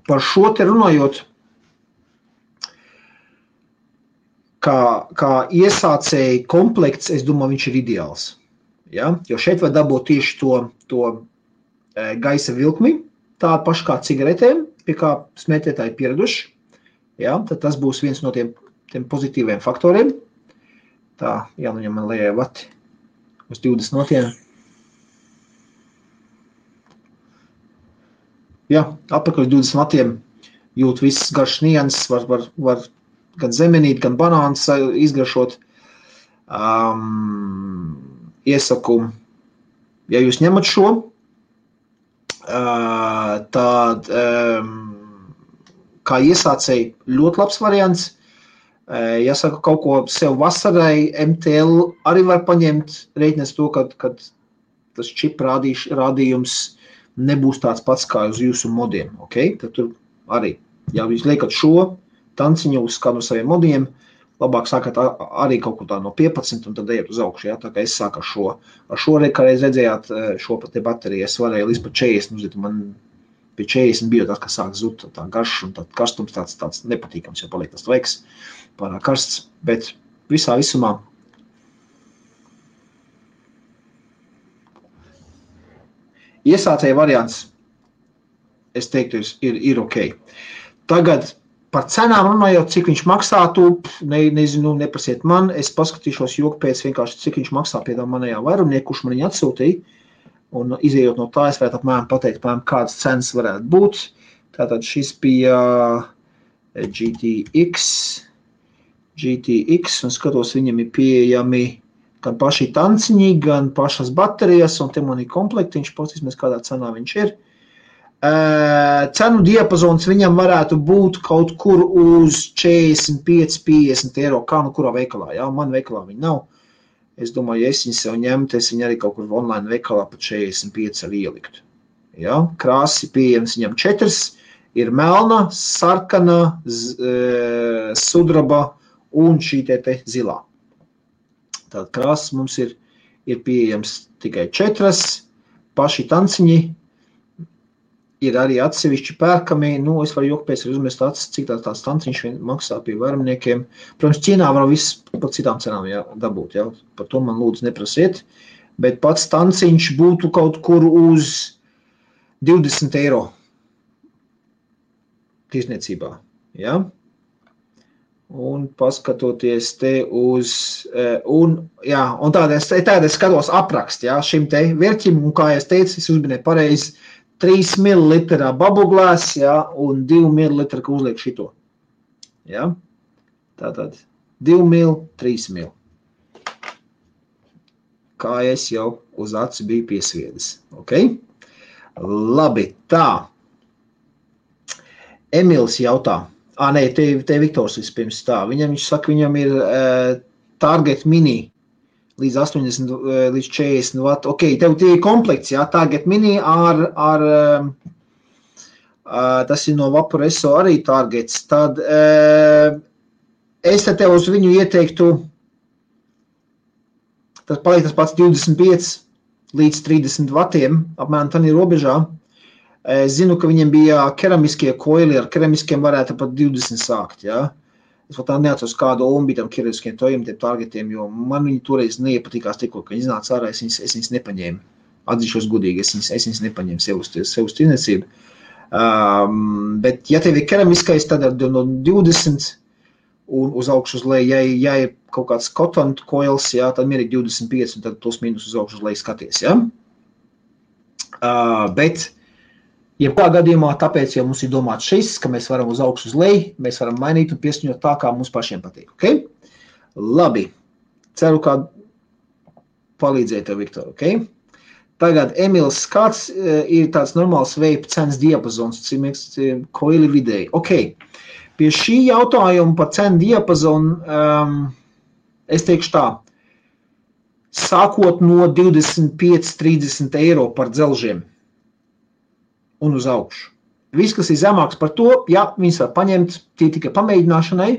par šo te runājot, kā iesācēji komplekts, es domāju, viņš ir ideāls. Ja? Jo šeit var dabūt tieši to gaisa vilkmi, tādu pašu kā cigaretēm, pie kā smētētāji pieraduši. Ja? Tad tas būs viens no tiem pozitīviem faktoriem. Tā, jānoņem man lejai vati. Uz 20 notiem. jā, apakaļ 20 vatiem jūt visas garšas nianses, var gan zemenīt, gan banāns izgaršot. Iesaku, ja jūs ņemat šo, tad kā iesācēji ļoti labs variants. Ja saku kaut ko sev vasarai, MTL arī var paņemt, reiķinās to, kad tas čip rādījums nebūs tāds pats kā uz jūsu modiem. Okay? Tad tur arī, ja jūs liekat šo tanciņu uz kādu no saviem modiem, labāk sākat arī kaut ko tā no 15 un tad ejat uz augšu. Ja? Tā kā es sāku ar šo. Ar šo reiz redzējāt šo te bateriju, es varēju līdz pa 40, man pie 40 bija tas, kas sāk zut tā garš un tad karstums tāds nepatīkams, jo paliek tas tveiks pārāk karsts, bet visā visumā iesācēja variants, es teiktu, ir ok. Tagad par cenām runājot, cik viņš maksātu, nezinu, neprasiet man, es paskatīšos joku pēc vienkārši, cik viņš maksā pie tā manējā vairumnieku, kurš man viņu atsūtīja, un izējot no tā, es varētu apmēram pateikt, kādas cenas varētu būt. Tātad šis bija GTX, un skatos, viņam ir pieejami gan paši tanciņi, gan pašas baterijas, un te man ir komplektiņš, paskatīsimies, kādā cenā viņš ir. Cenu diapazons viņam varētu būt kaut kur uz 45-50 eiro, kā nu kurā veikalā, jā, man veikalā viņa nav. Es domāju, ja es viņu sev ņemtu, es viņu arī kaut kur online veikalā pat 45 arī ieliktu. Ja? Krāsi pieejams viņam 4, ir melna, sarkana, sudraba un šī te zilā. Tātad krāsas mums ir pieejams tikai 4, paši tanciņi ir arī atsevišķi pērkami, es varu joku pēc uzmest acis, cik tāds tanciņš maksā pie vairumniekiem. Protams, Ķīnā var viss par citām cenām dabūt, ja? Par to man lūdzu neprasiet, bet pats tanciņš būtu kaut kur uz 20 eiro tirsniecībā, ja? Un paskatoties te uz, un tāda es skatos aprakst, ja, šim te vērķim, un kā es teicu, es uzminēju pareizi, 3 ml bubbleglass, ja, un 2 ml, ka uzliek šito. Ja? Tātad 2 ml, 3 ml. Kā es jau uz acu biju piesviedis. Okay? Labi, tā. Emils jautā. Te Viktors vispirms tā. Viņš saka, viņam ir Target Mini līdz 80, līdz 40 watt. Ok, tev tie ir komplekts, jā, Target Mini tas ir no Vaporesso arī Targets. Tad es tev uz viņu ieteiktu, tas paliek tas pats 25 līdz 30 vatiem, apmēram tā ir robežā. Es zinu, ka viņiem bija keramiskie koili, ar keramiskiem varētu pat 20 sākt, jā. Es vēl tā neatceros kādu ombi tam keramiskiem tojiem, tiem targetiem, jo man viņi toreiz neiepatīkās tikko, ka viņi iznāca ārā, es viņas nepaņēmu. Atzīšos gudīgi, es viņas nepaņēmu sev uz tirniecību. Bet, ja tev ir keramiskais, tad no 20 un uz augšu uz leju, ja ir kaut kāds cotton coils, jā, tad mierīgi 25 un tad plus mīnus uz augšu uz leju skaties, jā. Bet jebkā gadījumā, tāpēc jau mums ir domāts šis, ka mēs varam uz augšu uz leju, mēs varam mainīt un pieskaņot tā, kā mums pašiem patīk. Okay? Labi. Ceru, kā palīdzēja tev, Viktor. Okay? Tagad, Emils, kāds ir tāds normāls vape cenas diapazons, koili vidēji? Okay. Pie šī jautājuma par cenu diapazonu es teikšu tā. Sākot no 25-30 eiro par dzelžiem un uz augšu. Viss, kas ir zemāks par to, jā, viņas var paņemt, tie tikai pamēģināšanai,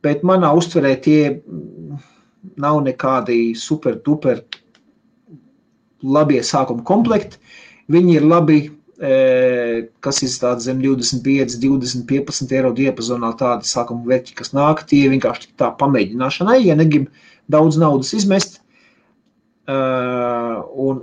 bet manā uztverē tie nav nekādi super duper labie sākuma komplekti. Viņi ir labi, kas ir tādi zem 25, 20, 15 eiro diapazonā tādi sākuma vērķi, kas nāk, tie vienkārši tā pamēģināšanai, ja negrib daudz naudas izmest, un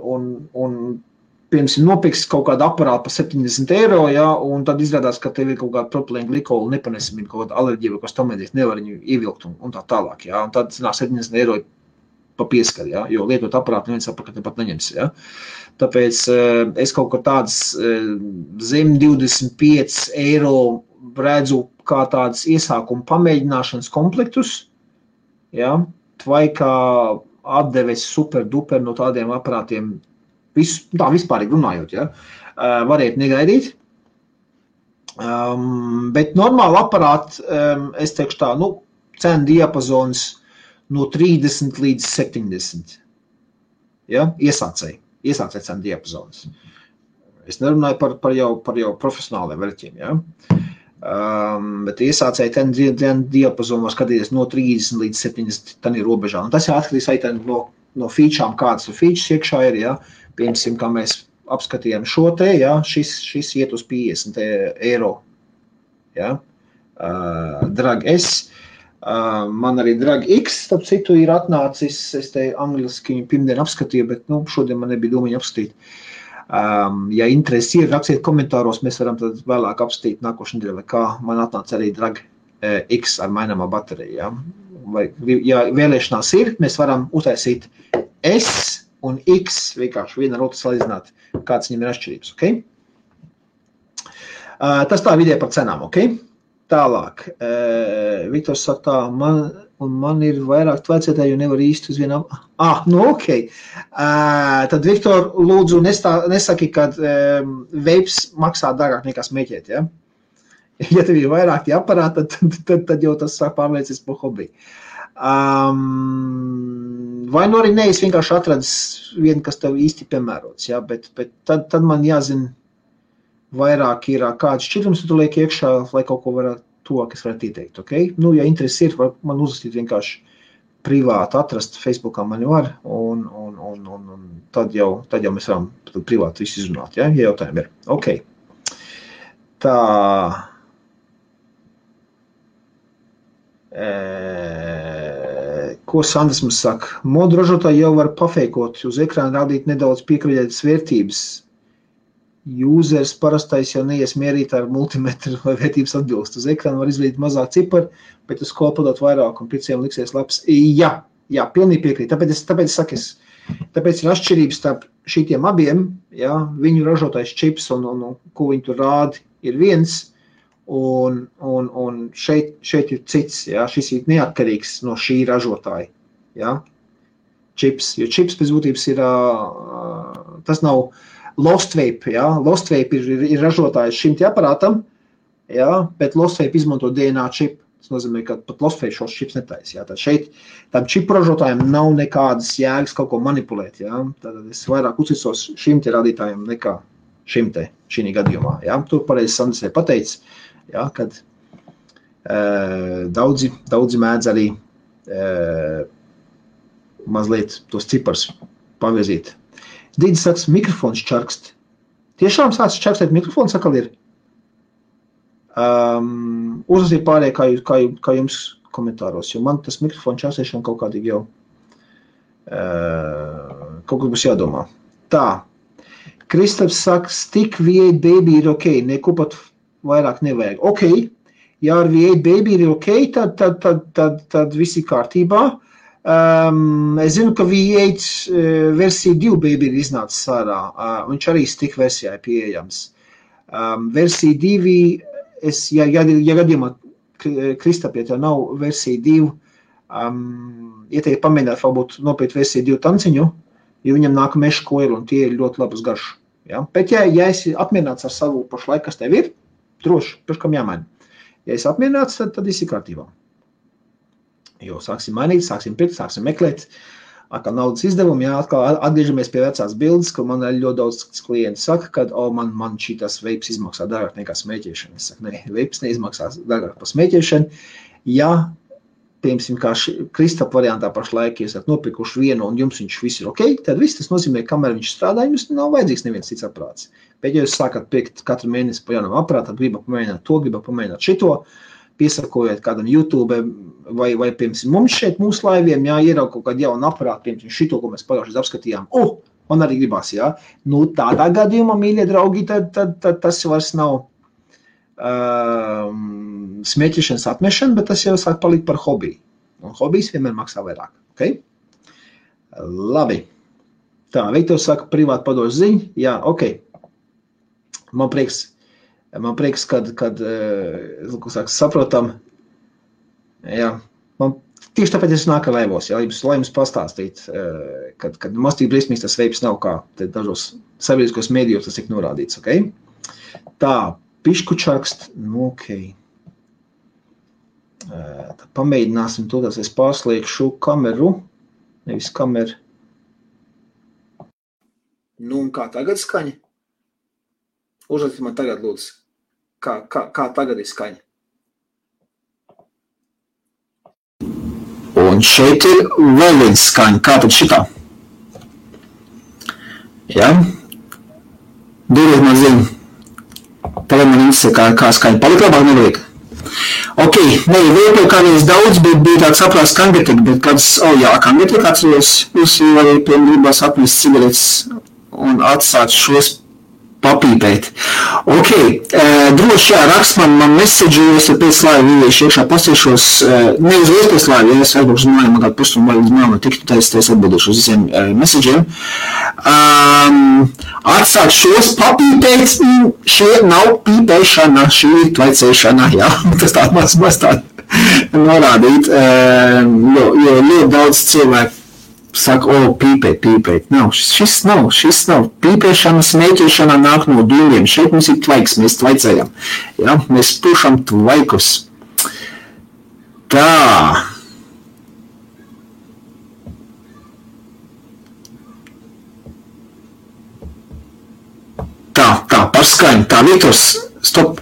piemēram, nopirks kaut kādu aparātu par 70 eiro, ja, un tad izrādās, ka tev ir kaut kāda propilēna glikolu nepanesamība, kaut kāda alerģija, vai kas tam līdzīgs, nevar viņu ievilkt un tā tālāk. Ja, un tad 70 eiro pa pieskaru, ja? Jo lietot aparātu neviens apakaļ pat neņems. Ja? Tāpēc es kaut kā tādas zem 25 eiro redzu kā tādas iesākuma pamēģināšanas komplektus, ja? Tvaikā atdeves super duper no tādiem aparātiem, tā vispārīgi runājot, ja? Variet negaidīt. Bet normāli aparāti, es teikšu tā, cenu diapazons no 30 līdz 70. Ja? Iesācēji cenu diapazons. Es nerunāju par jau profesionāliem veļķiem. Ja? Bet iesācēji cenu diapazonu var skatīties no 30 līdz 70 tani robežā. Un tas jau atkarīgs arī no featurām, kādas features iekšā ir. Ja? Piemēram, kā mēs apskatījām šo te, ja? Šis iet uz 50 eiro. Ja? Drag S. Man arī Drag X, starp citu, ir atnācis, es te angliski pirmdien apskatīju, bet šodien man nebija domiņa apskatīt. Ja interesi ir, rakstiet komentāros, mēs varam tad vēlāk apskatīt nākošu nedēļu, vai kā man atnāca arī Drag X ar maināmā bateriju. Ja? Vai, ja vēlēšanās ir, mēs varam uztaisīt S un X, vienkārši viena ar otru salīdzināt, kāds viņam ir atšķirības. Okay? Tas tā vidē par cenām, ok? Tālāk, Viktors saka tā, man ir vairāk tvecētāji, jo nevar īsti uz vienam. Ok. Tad, Viktor, lūdzu, nesaki, kad veips maksā dārgāk nekā smēķēt, ja? Ja tev ir vairāk tie aparāti, tad jau tas sāk pārvērties par hobiju. Vai nu arī es vienkārši atradis vienu, kas tev īsti piemērots, ja? Bet tad man jāzina, vairāk ir kāds šķirums, tu liek iekšā, lai kaut ko varētu to, kas varētu ieteikt, ok? Ja interesi ir, var man uzrakstīt vienkārši privāti atrast, Facebookā mani var, un tad jau mēs varam privāti visu izrunāt, ja jautājumi ir. Ok. Tā. Ko Sandrs mums saka? Modu ražotāji jau var pafeikot, uz ekrāna rādīt nedaudz piekriļētas vērtības. Users parastais jau neies mierīt ar multimetru vai vērtības atbilst. Uz ekrāna var izvēlēt mazāk ciparu, bet uz kolpadot vairāk un pirciem liksies labs. Jā, pilnīgi piekrīt. Tāpēc ir atšķirības starp šitiem abiem, ja, viņu ražotais čips un ko viņi tur rādi ir viens, un šeit ir cits, ja, šis ir neatkarīgs no šī ražotāja, ja, čips, jo čips pēc būtības ir, tas nav Lostvape, ja? Lostvape ir ražotājs šim te aparātam, ja? Bet Lostvape izmanto DNA čipu. Tas nozīmē, ka pat Lostvape šos čips netaisa. Ja? Tad šeit tam čipu ražotājiem nav nekādas jēgas kaut ko manipulēt. Ja? Tad es vairāk uzticos šim te radītājiem nekā šim te, šī gadījumā. Ja? Tur pareizi Sandrs ir pateicis, ja? Kad daudzi mēdz arī mazliet tos cipars pavirzīt. Dīdis saka, mikrofons čarkst. Tiešām sāc čarkstēt mikrofons atkal ir? Uzrasīt pārējie, kā jums komentāros, jo man tas mikrofons čarkstēšana kaut kādīgi jau kaut kas būs jādomā. Tā. Kristaps saka, stick V8 baby ir ok, neko pat vairāk nevajag. Ok, ja ar V8 baby ir ok, tad viss ir kārtībā. Es zinu, ka V8 versija 2 baby ir iznācis ārā, viņš arī stick versijā ir pieejams. Versija 2, ja gadījumā Kristap, ja tev nav versija 2, ieteikt pamēģināt varbūt nopēt versiju 2 tanciņu, jo viņam nāk meša koili un tie ir ļoti labas garšu. Ja? Bet ja esi apmierināts ar savu pašlaik, kas tev ir, droši, pirkam jāmaina. Ja esi apmierināts, tad viss ir kārtībā. Jo sāksim mainīt, sāksim pirkt, sāksim meklēt, atkal naudas izdevumi, jā, atkal atgriežamies pie vecās bildes, ko man ļoti daudz klienti saka, kad, man šitas veips izmaksā dārgāk nekā smēķēšana. Es saku, ne, veips neizmaksās dārgāk par smēķēšanu. Ja, piemēram, kā Kristap variantā pašlaik, ja esat nopirkuši vienu un jums viņš viss ir ok, tad viss tas nozīmē, kamēr viņš strādā, jums nav vajadzīgs neviens cits aprāts. Bet, ja jūs sākat pirkt katru mēnesi pa jaunam aprātam, gribat pamēģināt to, gribat pamēģināt šito, piesakojot kādam YouTube vai piemēram, mums šeit mūsu laiviem, jā, ieraug kaut kādu jaunu aparātu, piemēram, šito, ko mēs pagājušajā apskatījām. Man arī gribās, jā. Nu, tādā gadījumā, mīļie draugi, tad tas vairs nav smēķišanas atmešana, bet tas jau sāk palikt par hobiju. Un hobijs vienmēr maksā vairāk, ok? Labi. Tā, Viktors saka, privāti padošu ziņu. Jā, ok. Man prieks, kad saprotam. Jā, man tieši tāpēc es nāku laivos, lai jums pastāstīt, kad mastīgi briesmīgs tas veips nav kā dažos sabiedriskos mēdījos tas tiek norādīts, ok? Tā, piškučakst, nu, ok. Tā pamēģināsim to, tas es pārslēgšu kameru, nevis kameru. Nu, un kā tagad skaņa? Uzrakstiet man tagad, lūdzu. Kā tagad ir skaņa? Un šeit ir vēl viens skaņa. Kā tad šitā? Jā? Dodiet man ziņu. Tagad man interesē, kā skaņa. Palika labāk nevajag. Ok, vēl kādreiz daudz, bet bija tāds saprās kangetika, bet kāds, kangetika atceros, jūs arī gribās atmest cigaretes un atstāt šos papīpēt. Ok, droši rakst man message, es pēc laiva iešu iekšā pasīšos, neuzreiz pēc laiva, ja es aizbraukšu uz mājām, man kādu pusstundu līdz mājām tiktu, tad es atbildēšu uz visiem messageiem. Atstāt šos papīpēt, šie nav pīpēšana, šī ir tvaicēšana, jā, tas tā maz tā norādīt, jo ļoti daudz cilvēku saka, pīpēt. Nav, šis nav. Pīpēšana, smēķēšana nāk no dūļiem. Šeit mums ir tvaiks, mēs tvaicējam. Ja? Mēs pušam tvaikus. Tā. Tā, par skaņu. Tā, Viktors, stop.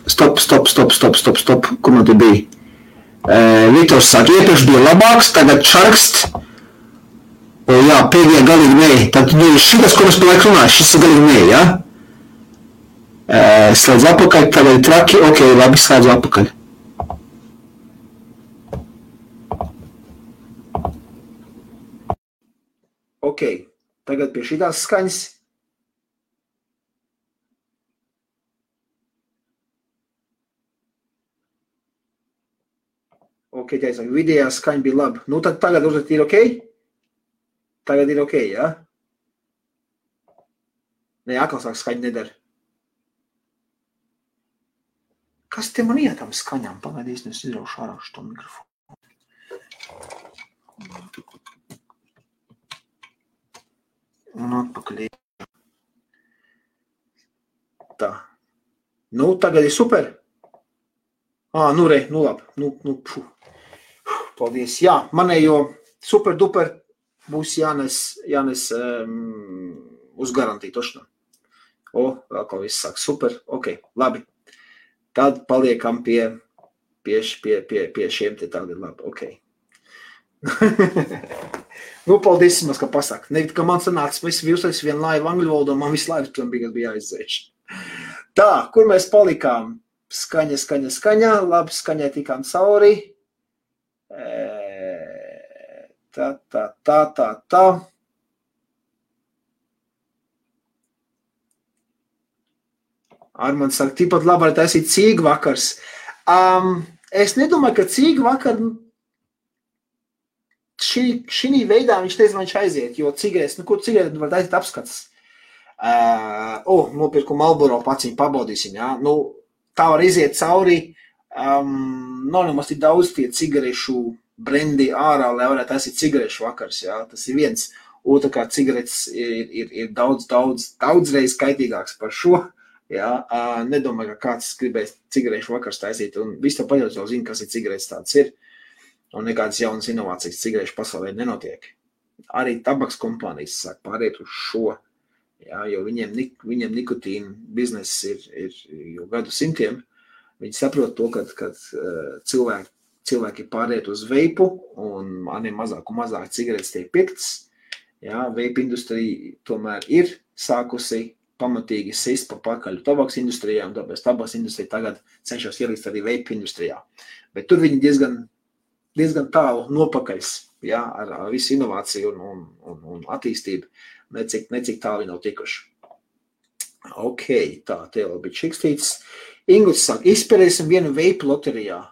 Kur man te bija? Viktors saka, iepriekš bija labāks, tagad čarkst. Jā, pēdējā galīgi nē. Tad šitas, ko mēs par laiku runāju, šis ir galīgi nē, jā? Slēdz apakaļ, tagad ir traki, ok, labi, slēdzu apakaļ. Ok, tagad pie šitās skaņas. Ok, taisāk, vidējā skaņa bija labi. Nu, tad tagad uzlikt ir ok? Tagad ir ok, jā? Nē, atkal sāk skaņa nedara. Kas te man ietam skaņām? Pagaidīs, es izraušu ārā šo mikrofonu. Un atpakaļ. Tā. Nu, tagad ir super. Nu labi. Paldies. Jā, manējo super duper būs jānes uz garantiju tošanā. Vēl kaut viss sāk super. Ok, labi. Tad paliekam pie šiem te tagad labi. Ok. Nu, paldies, ka pasaka. Nevit, ka man sanāks, viss virsais vien laiva angļu valodā, man viss laivas tam bija jāizdzēš. Tā, kur mēs palikām? Skaņa. Labi, skaņai tikām cauri. Tā. Armands saka, tikpat labi var taisīt cīgu vakars. Es nedomāju, ka cīgu vakar šī veidā viņš teica, viņš aiziet, jo cigaretes, kur cigaretes var taisīt apskats. Nopirku Marlboro paciņu, pabaudīsim, jā. Tā var iziet cauri, nav nemaz tik daudz tie cigarešu brendi ārā, lai varētu taisīt cigarešu vakars, jā, tas ir viens. Otrkārt, cigaretes ir daudz reiz kaitīgāks par šo, jā, nedomāju, ka kāds gribēs cigarešu vakars taisīt, un viss to paļaut jau zina, kas ir cigaretes tāds ir, un nekādas jaunas inovācijas cigarešu pasaulē nenotiek. Arī tabaks kompānijas sāk pāriet uz šo, jā, jo viņiem nikotīna bizness ir jau gadu simtiem, viņi saprot to, kad cilvēki pāriet uz veipu, un maniem mazāk un mazāk cigaretes tiek pirktas. Jā, veipa industrija tomēr ir sākusi pamatīgi sist pa pakaļ tabaks industrijā, un tāpēc tabaks industrija tagad cenšas ielīst arī veipa industrijā. Bet tur viņi diezgan tālu nopakaļs, jā, ar visu inovāciju un attīstību, necik tālu viņi nav tikuši. Ok, tā, te vēl bija čikstīts. Inguts saka, izspēlēsim vienu veipu loterijā.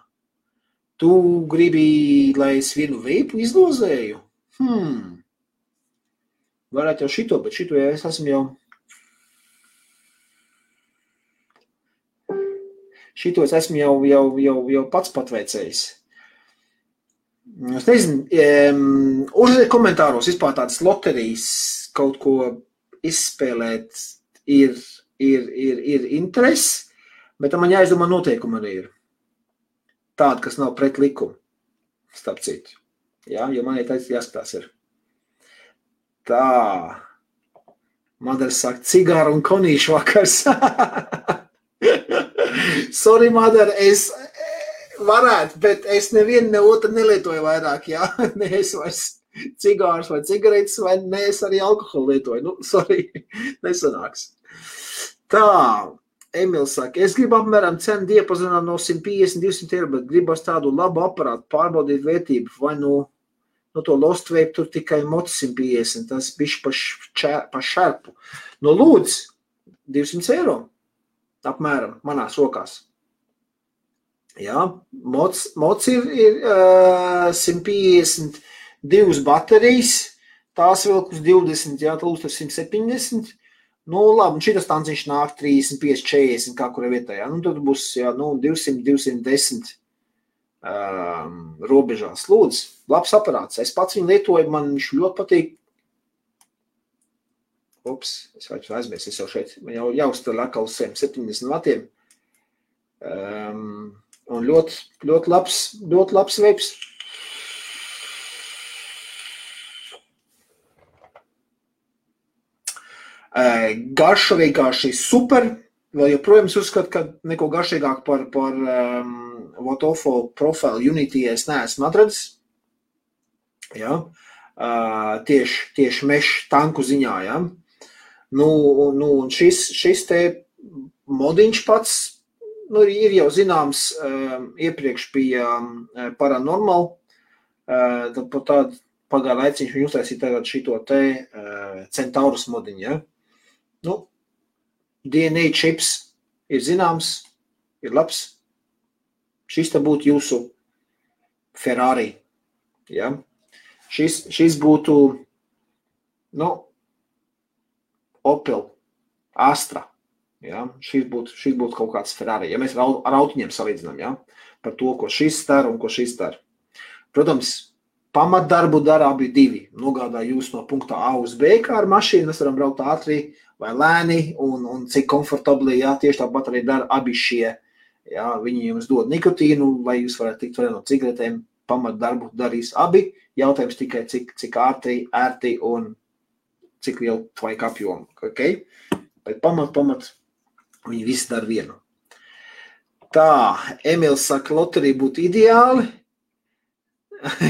Tu gribi, lai es vienu veipu izdozēju? Varētu jau šito, bet šito es esmu jau... Šito es esmu jau pats patveicējis. Es nezinu, uzliek komentāros vispār tādas loterijas kaut ko izspēlēt ir interesi, bet man jāizdomā noteikumi arī ir. Tāda, kas nav pret likumu, starp citu. Jā, jo man jāskatās ir. Tā. Madara saka, cigāru un konīšu vakars. Sorry, Madara, es varētu, bet es nevienu ne otru nelietoju vairāk, jā. Ne es vairs cigārus vai cigaretes, vai ne es arī alkoholu lietoju. Nu, sorry, nesanāks. Tā, Emils saka, es gribu apmēram cenu diapazonā no 150-200 eiro, bet gribas tādu labu aparātu, pārbaudīt vērtību, vai no to Lost Vape tur tikai moci 150, tas bišķi pa šerpu. No lūdz, 200 eiro, apmēram, manās rokās. Jā, moci ir 152 baterijas, tās vilk uz 20, jā, tūs uz 170. Nu, labi, un šitas tanciņš nāk 35, 40, kā kura vietā, jā. Nu, tad būs, jā, 200, 210 robežās. Lūdzu, labs aparāts. Es pats viņu lietoju, man viņš ļoti patīk. Ups, es vajag aizmirst, es jau šeit, man jau jāuzstāj atkal uz 70 vatiem. Un ļoti labs veips. Garša vienkārši super. Vēl joprojām uzskatu, ka neko garšīgāk par Votofo profilu Unity es neesmu atradzis. Jā. Tieši mešu tanku ziņā, jā. Nu, un šis te modiņš pats, nu, ir jau zināms, iepriekš bija Paranormal, tad par tādu pagāja laiciņš viņu uztaisīja tagad šito te Centaurus modiņu, ja? Nu, DNA čips ir zināms, ir labs. Šis te būtu jūsu Ferrari, ja? Šis būtu, nu, Opel, Astra, ja? Šis būtu kaut kāds Ferrari, ja mēs ar autiņiem salīdzinām, ja? Par to, ko šis dara un ko šis dara. Protams, pamatdarbu dara abi divi. Nogādā jūs no punkta A uz B kā ar mašīnu, mēs varam braukt ātri vai lēni un cik komfortabli, jā, tieši tāpat arī dara abi šie. Jā, viņi jums dod nikotīnu, lai jūs varētu tikt no cigaretēm, pamatdarbu darīs abi. Jautājums tikai cik ērti un cik lielu tvaika apjomu, okay? Bet pamat, viņi visi dara vienu. Tā, Emils saka, loterija būtu ideāli.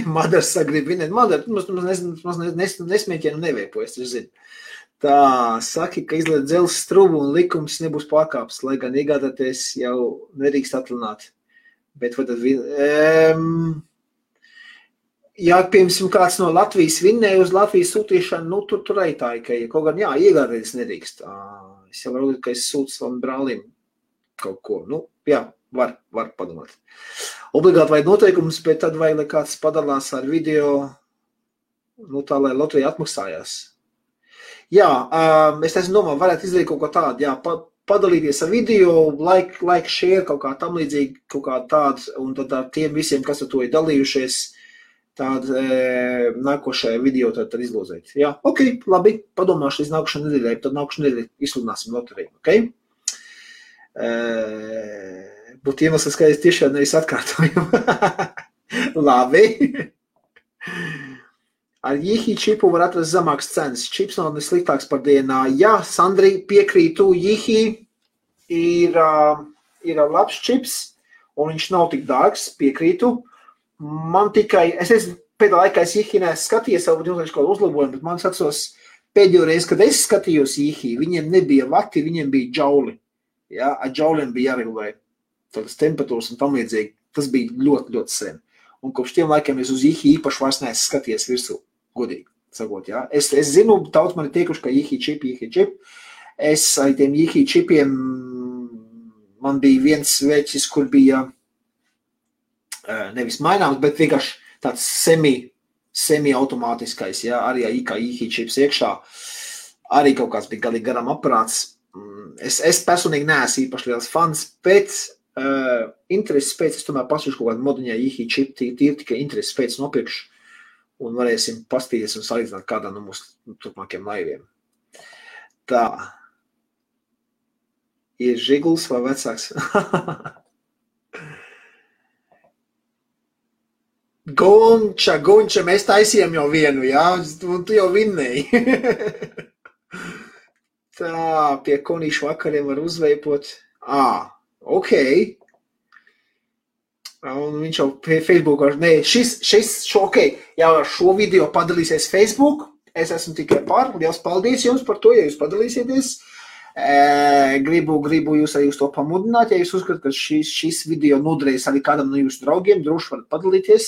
Madars saka, grib vinēt. Madars, nesmieķienu neveipo, es taču zinu. Tā, saki, ka izliet dzelzs strubu un likums nebūs pārkāps, lai gan iegādāties jau nedrīkst atlināt. Bet vai tad ja, piemēram, kāds no Latvijas vinnēja uz Latvijas sūtīšanu, nu, tur arī tā, ka kaut gan, jā, iegādāties nedrīkst. Es jau varu, ka es sūtu savam brālim kaut ko. Nu, jā, var padomāt. Obligāti vajag noteikumus, bet tad vajag, lai kāds padalās ar video, nu, tā, lai loterija atmaksājās. Jā, es domāju, varētu izdarīt kaut ko tādu, jā, padalīties ar video, like, share, kaut kā tam līdzīgi, kaut kā tādu, un tad ar tiem visiem, kas ar to ir dalījušies, tādu nākošajā video tad izlozēt. Jā, ok, labi, padomāšu līdz nākošajā nedēļai, tad nākošajā nedēļai izsludināsim loteriju, ok? Būtu iemesls, ka es tiešām nevis atkārtoju. Labi. Ar Jihi čipu var atrast zemāks cenas. Čips nav nesliktāks par DNA. Jā, Sandri, piekrītu, Jihi ir labs čips, un viņš nav tik dārgs, piekrītu. Man tikai, pēdējā laikā es Jihi neskatījies, varbūt jums kaut uzlabojumu, bet man atceros pēdējo reizi, kad es skatījos Jihi, viņiem nebija vati, viņiem bija džauli. Jā, ar džauliem bija jāregulē tādas temperatūras un tam līdzīgi. Tas bija ļoti, ļoti sen. Un kopš tiem laikiem es uz Jihi īpaši vairs neesmu skatījies virsū, godīgi sakot, jā. Es zinu, daudz man ir tiekuši, ka Jihi čip. Es ar tiem Jihi čipiem, man bija viens veķis, kur bija nevis maināms, bet vienkārši tāds semi-automātiskais, ja, arī IKI čips iekšā, arī kaut kāds bija galīgi garam aparāts. Es personīgi neesmu īpaši liels fans, bet intereses pēc, es tomēr pasūšu kaut kādu moduņā IKI čip, tīri tikai intereses pēc nopirkšu, un varēsim pastīties un salīdzināt kādā no mūsu turpmākiem laiviem. Tā. Ir Žiguls vai vecāks? Gunča, mēs taisījām jau vienu, jā? Un tu jau vinnēji. Tā, pie konīšu vakariem var uzveipot. Ok. Un viņš jau pie Facebook, ok, jau ar šo video padalīsies Facebook. Es esmu tikai par. Liels paldies jums par to, ja jūs padalīsieties. Gribu jūs arī uz to pamudināt, ja jūs uzskatāt, ka šis video noderēs arī kādam no jūsu draugiem, droši varat padalīties,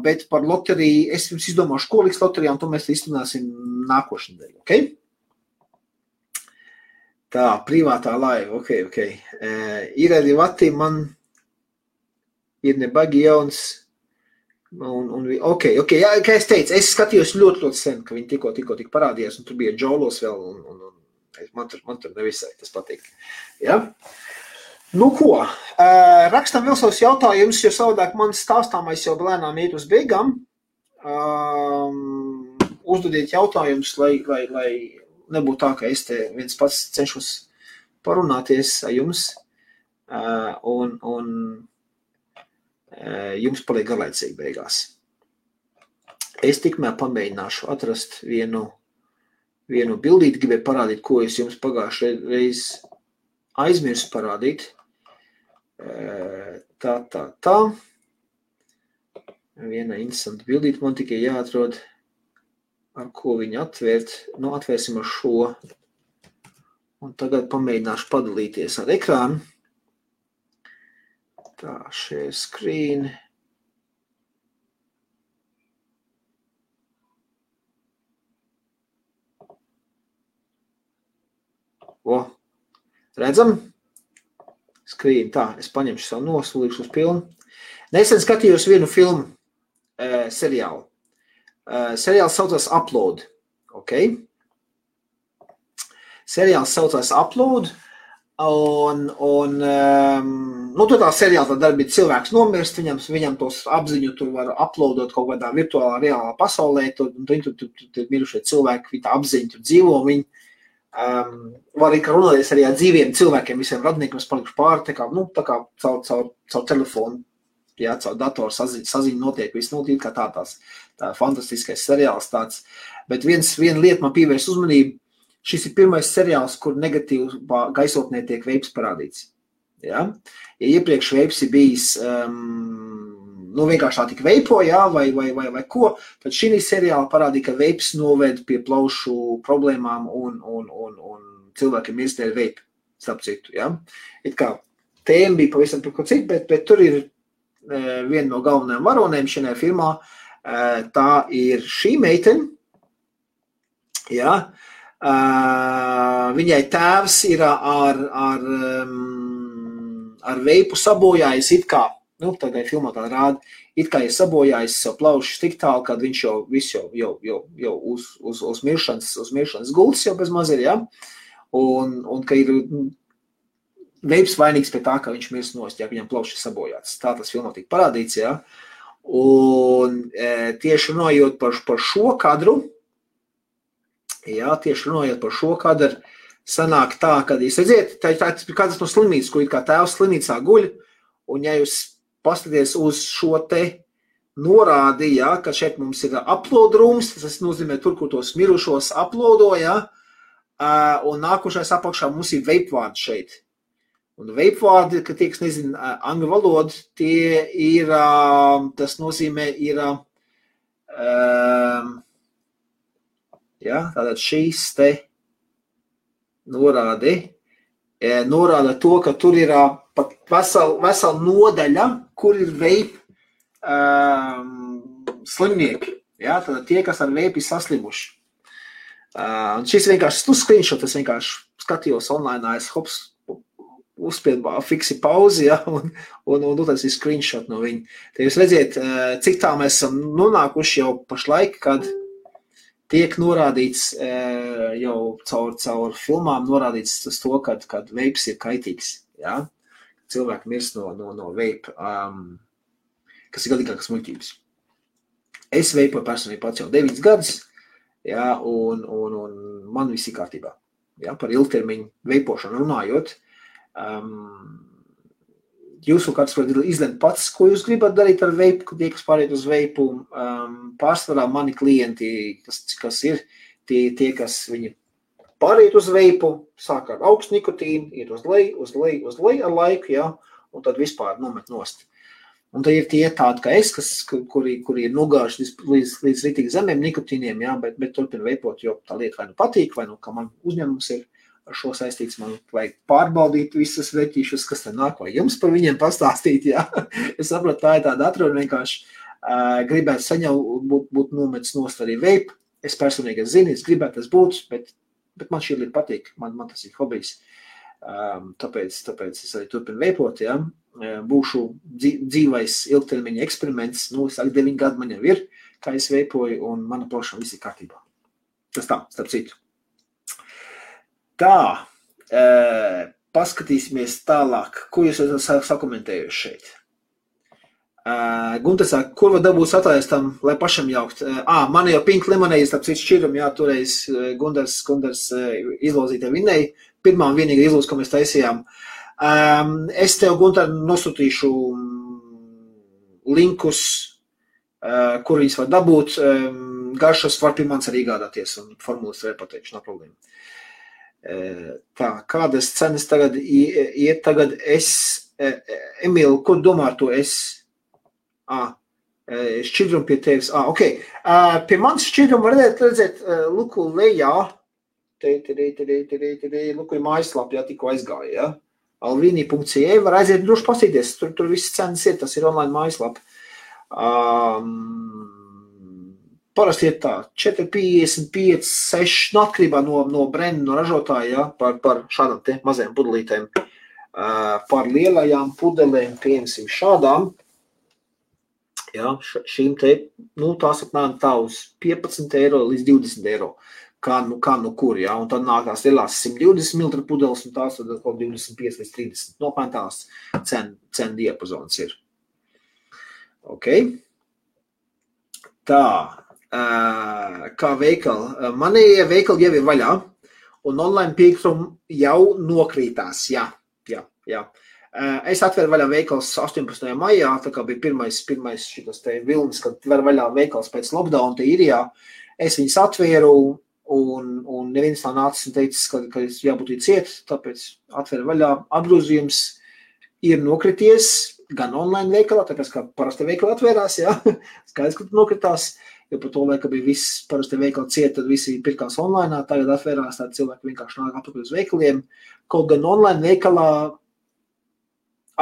bet par loteriju es jums izdomāšu, ko liks loterijā, un to mēs iztunāsim nākošu nedēļu, ok? Tā, privātā laiva, ok. Ir arī vati, man ir nebagi jauns, ok, jā, kā es teicu, es skatījos ļoti sen, ka viņi tikko parādījās, un tur bija Džolos vēl, un man tur nevisai tas patīk. Ja? Nu ko, rakstam vēl savus jautājumus, jo savādāk man stāstāmais jau lēnām iet uz beigām. Uzdodiet jautājumus, lai nebūtu tā, ka es te viens pats cenšos parunāties ar jums, un jums paliek garlaicīgi beigās. Es tikmēr pamēģināšu atrast vienu bildīti, gribēju parādīt, ko es jums pagājušajā reiz aizmirsu parādīt. Tā. Viena interesanta bildīte man tikai jāatrod, ar ko viņu atvērt. Nu, atvērsim ar šo. Un tagad pamēģināšu padalīties ar ekrānu. Tā, share screen. Redzam? Skrīn, tā, es paņemšu savu nosulīšu uz pilnu. Nesen skatījos vienu filmu seriālu. Seriāls saucās Upload, ok? Seriāls saucās Upload, un tur tā seriāla tā darbība cilvēks nomirst, viņam tos apziņu tur var uploadot kaut kādā virtuālā, reālā pasaulē, un tur mirušie cilvēki, viņi tā apziņu tur dzīvo, viņi var arī runāties arī ar dzīviem cilvēkiem, visiem radniekiem, kas palikuši pāri, tā kā caur telefonu, jā, caur datoru saziņu notiek, viss notiek kā tā fantastiskais seriāls tāds. Bet viena lieta man pievērs uzmanību, šis ir pirmais seriāls, kur negatīvā gaisotnē tiek veips parādīts. Ja? Ja iepriekš veips ir bijis vienkārši tā tik veipo, jā, vai ko, tad šī seriāla parādīja, ka veips noved pie plaušu problēmām un cilvēkiem iestēļ veipi, starp citu, jā. It kā tēma bija pavisam par ko citu, bet tur ir viena no galvenajām varonēm šajā firmā, tā ir šī meitene, jā. Viņai tēvs ir ar veipu sabojājis it kā, tagad filmā tā rāda, it kā ir sabojājis savu plaušus tik tālu, kad viņš jau uz miršanas gultas jau bez maz ir, ja? Un ka ir veips vainīgs pie tā, ka viņš mirst nost, ja viņam plaušas sabojāts. Tā tas filmā tika parādīts, ja? Un tieši runājot par šo kadru, sanāk tā, kad jūs redziet, tā ir kādas no slimnīcas, kur it kā tēvs slimnīcā guļ, un ja jūs paskaties uz šo te norādi, ja, ka šeit mums ir upload rooms, tas nozīmē tur, kur tos mirušos uploado, ja, un nākošais apakšā mums ir vape vārdi šeit. Un vape vārdi, ka tie, kas nezina angļu valodu, tie ir, tas nozīmē ir, ja, tātad šīs te norāda to, ka tur ir pat vesela nodaļa, kur ir vape slimnieki. Ja? Tad tie, kas ar vape ir saslimuši. Šis vienkārši screenshot, es vienkārši skatījos online, es uzspied fiksi pauzi, ja, un uztaisīt screenshot no viņa. Te jūs redziet, cik tā mēs esam nonākuši jau pašlaik, kad tiek norādīts jau caur filmām norādīts tas to, kad veips ir kaitīgs, ja. Cilvēki mirst no veipa, kas ir galīgākas muļķības. Es veipoju personīgi pats jau 9 gadus, ja, un man viss ir kārtībā. Ja, par ilgtermiņu veipošanu runājot, jūs kāds varat izlemt pats, ko jūs gribat darīt ar veipu, tie, kas pāriet uz veipu. Pārsvarā mani klienti, kas ir tie, kas viņi pāriet uz veipu, sāk ar augstu nikotīnu, iet uz leju ar laiku, ja, un tad vispār nomet nost. Un tad ir tie tādi, kā es, kuri ir nogājuši līdz ritīgi zemiem nikotīniem, ja, bet turpina veipot, jo tā lieta vai nu patīk, vai nu, kā man uzņēmums ir ar šo saistīts, man vajag pārbaudīt visas veķīšus, kas te nāk, vai jums par viņiem pastāstīt, ja. Es saprotu, tā ir tāda atruna vienkārši gribētu saņemt būt nometis nost arī veipu. Es personīgi zinu, es gribētu tas būt, bet man šī lieta patīk, man tas ir hobijs. Tāpēc es arī turpinu veipot, ja. Būšu dzīvais ilgtermiņa eksperiments, es 9 gadu man jau ir, kā es veipoju, un mana plošana viss ir kārtībā. Tas tā, starp citu. Tā, paskatīsimies tālāk, ko jūs esat sakomentējuši šeit. Gunter saka, kur var dabūt sataistam, lai pašam jaukt? Man jau Pink Lemonade, starp citu šķirum, jā, toreiz Gunders izlozītē vinēja, pirmā un vienīga izlūz, ko mēs taisījām. Es tev, Gunter, nosūtīšu linkus, kur viņas var dabūt. Garšas var pie mans arī gādāties un formulas vēl pateikšu, nav problēma. Tā, kādas cenas tagad iet tagad Emīl, ko domā ar to šķidrumu pie tevis? Ok. Pie mans šķidrumu var redzēt luku lejā. Luku ir mājaslapā, tikko aizgāja, ja? alvini.ca var aiziet droši pasīties, tur viss cenas ir, tas ir online mājaslapa. Parasti ir tā, 4,55, 6, atkarībā no brenda, no ražotāja, ja, par šādām te mazajām pudelītēm. Par lielajām pudelēm, piemēram, šādām, ja, šīm te, tās apmēram tā uz 15 eiro līdz 20 eiro. Kā nu kur, ja, un tad nākās lielās 120 ml pudeles, un tās tad kaut 25 līdz 30. Nopēn tās cenu diapazons ir. Ok. Tā, kā veikali. Manie veikali jau ir vaļā, un online piekrumi jau nokrītās, jā. Es atveru vaļā veikals 18. maijā, tā kā bija pirmais šitas te vilnis, kad var vaļā veikals pēc lockdown te Irijā. Es viņus atvēru, un neviens tā nācis un teicis, ka jābūt ciet, tāpēc atver vaļā. Apgrozījums ir nokrities gan online veikalā, tāpēc kā parasti veikali atvērās, jā, skaidrs, ka nokritās, jo par to laika bija viss parasti veikali ciet, tad visi pirkās online, tagad atvērās, tādi cilvēki vienkārši nāk apakaļ uz veikaliem. Kaut gan online veikalā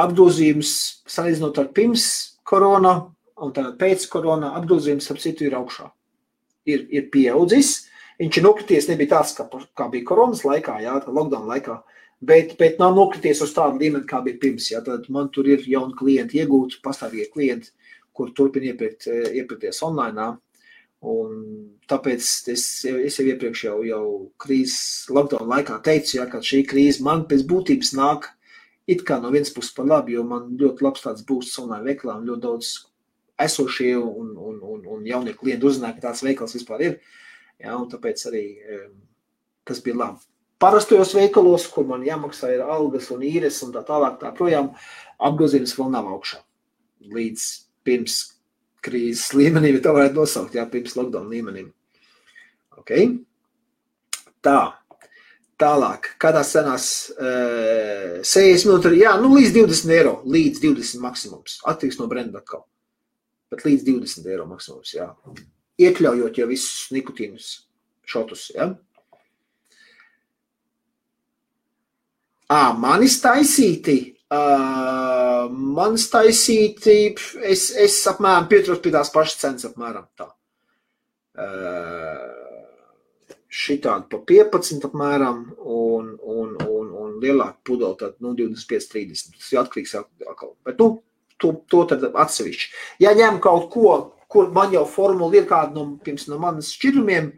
apgrozījums, salīdzinot ar pirms korona un tagad pēc korona, apgrozījums ap citu ir augšā. Ir pieaudzis. Viņš ir nokrities, nebija tāds, kā bija koronas laikā, jā, lockdown laikā, bet nav nokrities uz tādu līmeni, kā bija pirms. Jā, tad man tur ir jauni klienti iegūti, pastāvīgi klienti, kur turpina iepirkties online. Un tāpēc es jau iepriekš jau krīzes lockdown laikā teicu, jā, ka šī krīze man pēc būtības nāk it kā no vienas puses par labi, jo man ļoti labs tāds būsts online veikalā un ļoti daudz esošie un jaunie klienti uzzināja, ka tāds veikals vispār ir. Jā, un tāpēc arī tas bija labi. Parastojos veikalos, kur man jāmaksā ir algas un īres un tā tālāk tā projām, apgrozījums vēl nav augšā. Līdz pirms krīzes līmenim, ja tā varētu nosaukt, jā, pirms lockdown līmenim. Ok. Tā. Tālāk. Kādās cenās 60 minūti, jā, līdz 20 eiro. Līdz 20 maksimums. Attieks no brenda atkal. Bet līdz 20 eiro maksimums, jā. Iekļaujot jau visus nikotīnus šotus, ja? Manis taisīti, es apmēram pieturos pie tās pašas cenas apmēram tā. Šitādi pa 15 apmēram un lielāku pudeli, tad 25-30. Tas ir atkarīgs atkal. Bet to tad atsevišķi. Ja ņem kaut ko, kur man jau formula ir kāda no manas šķidrumiem,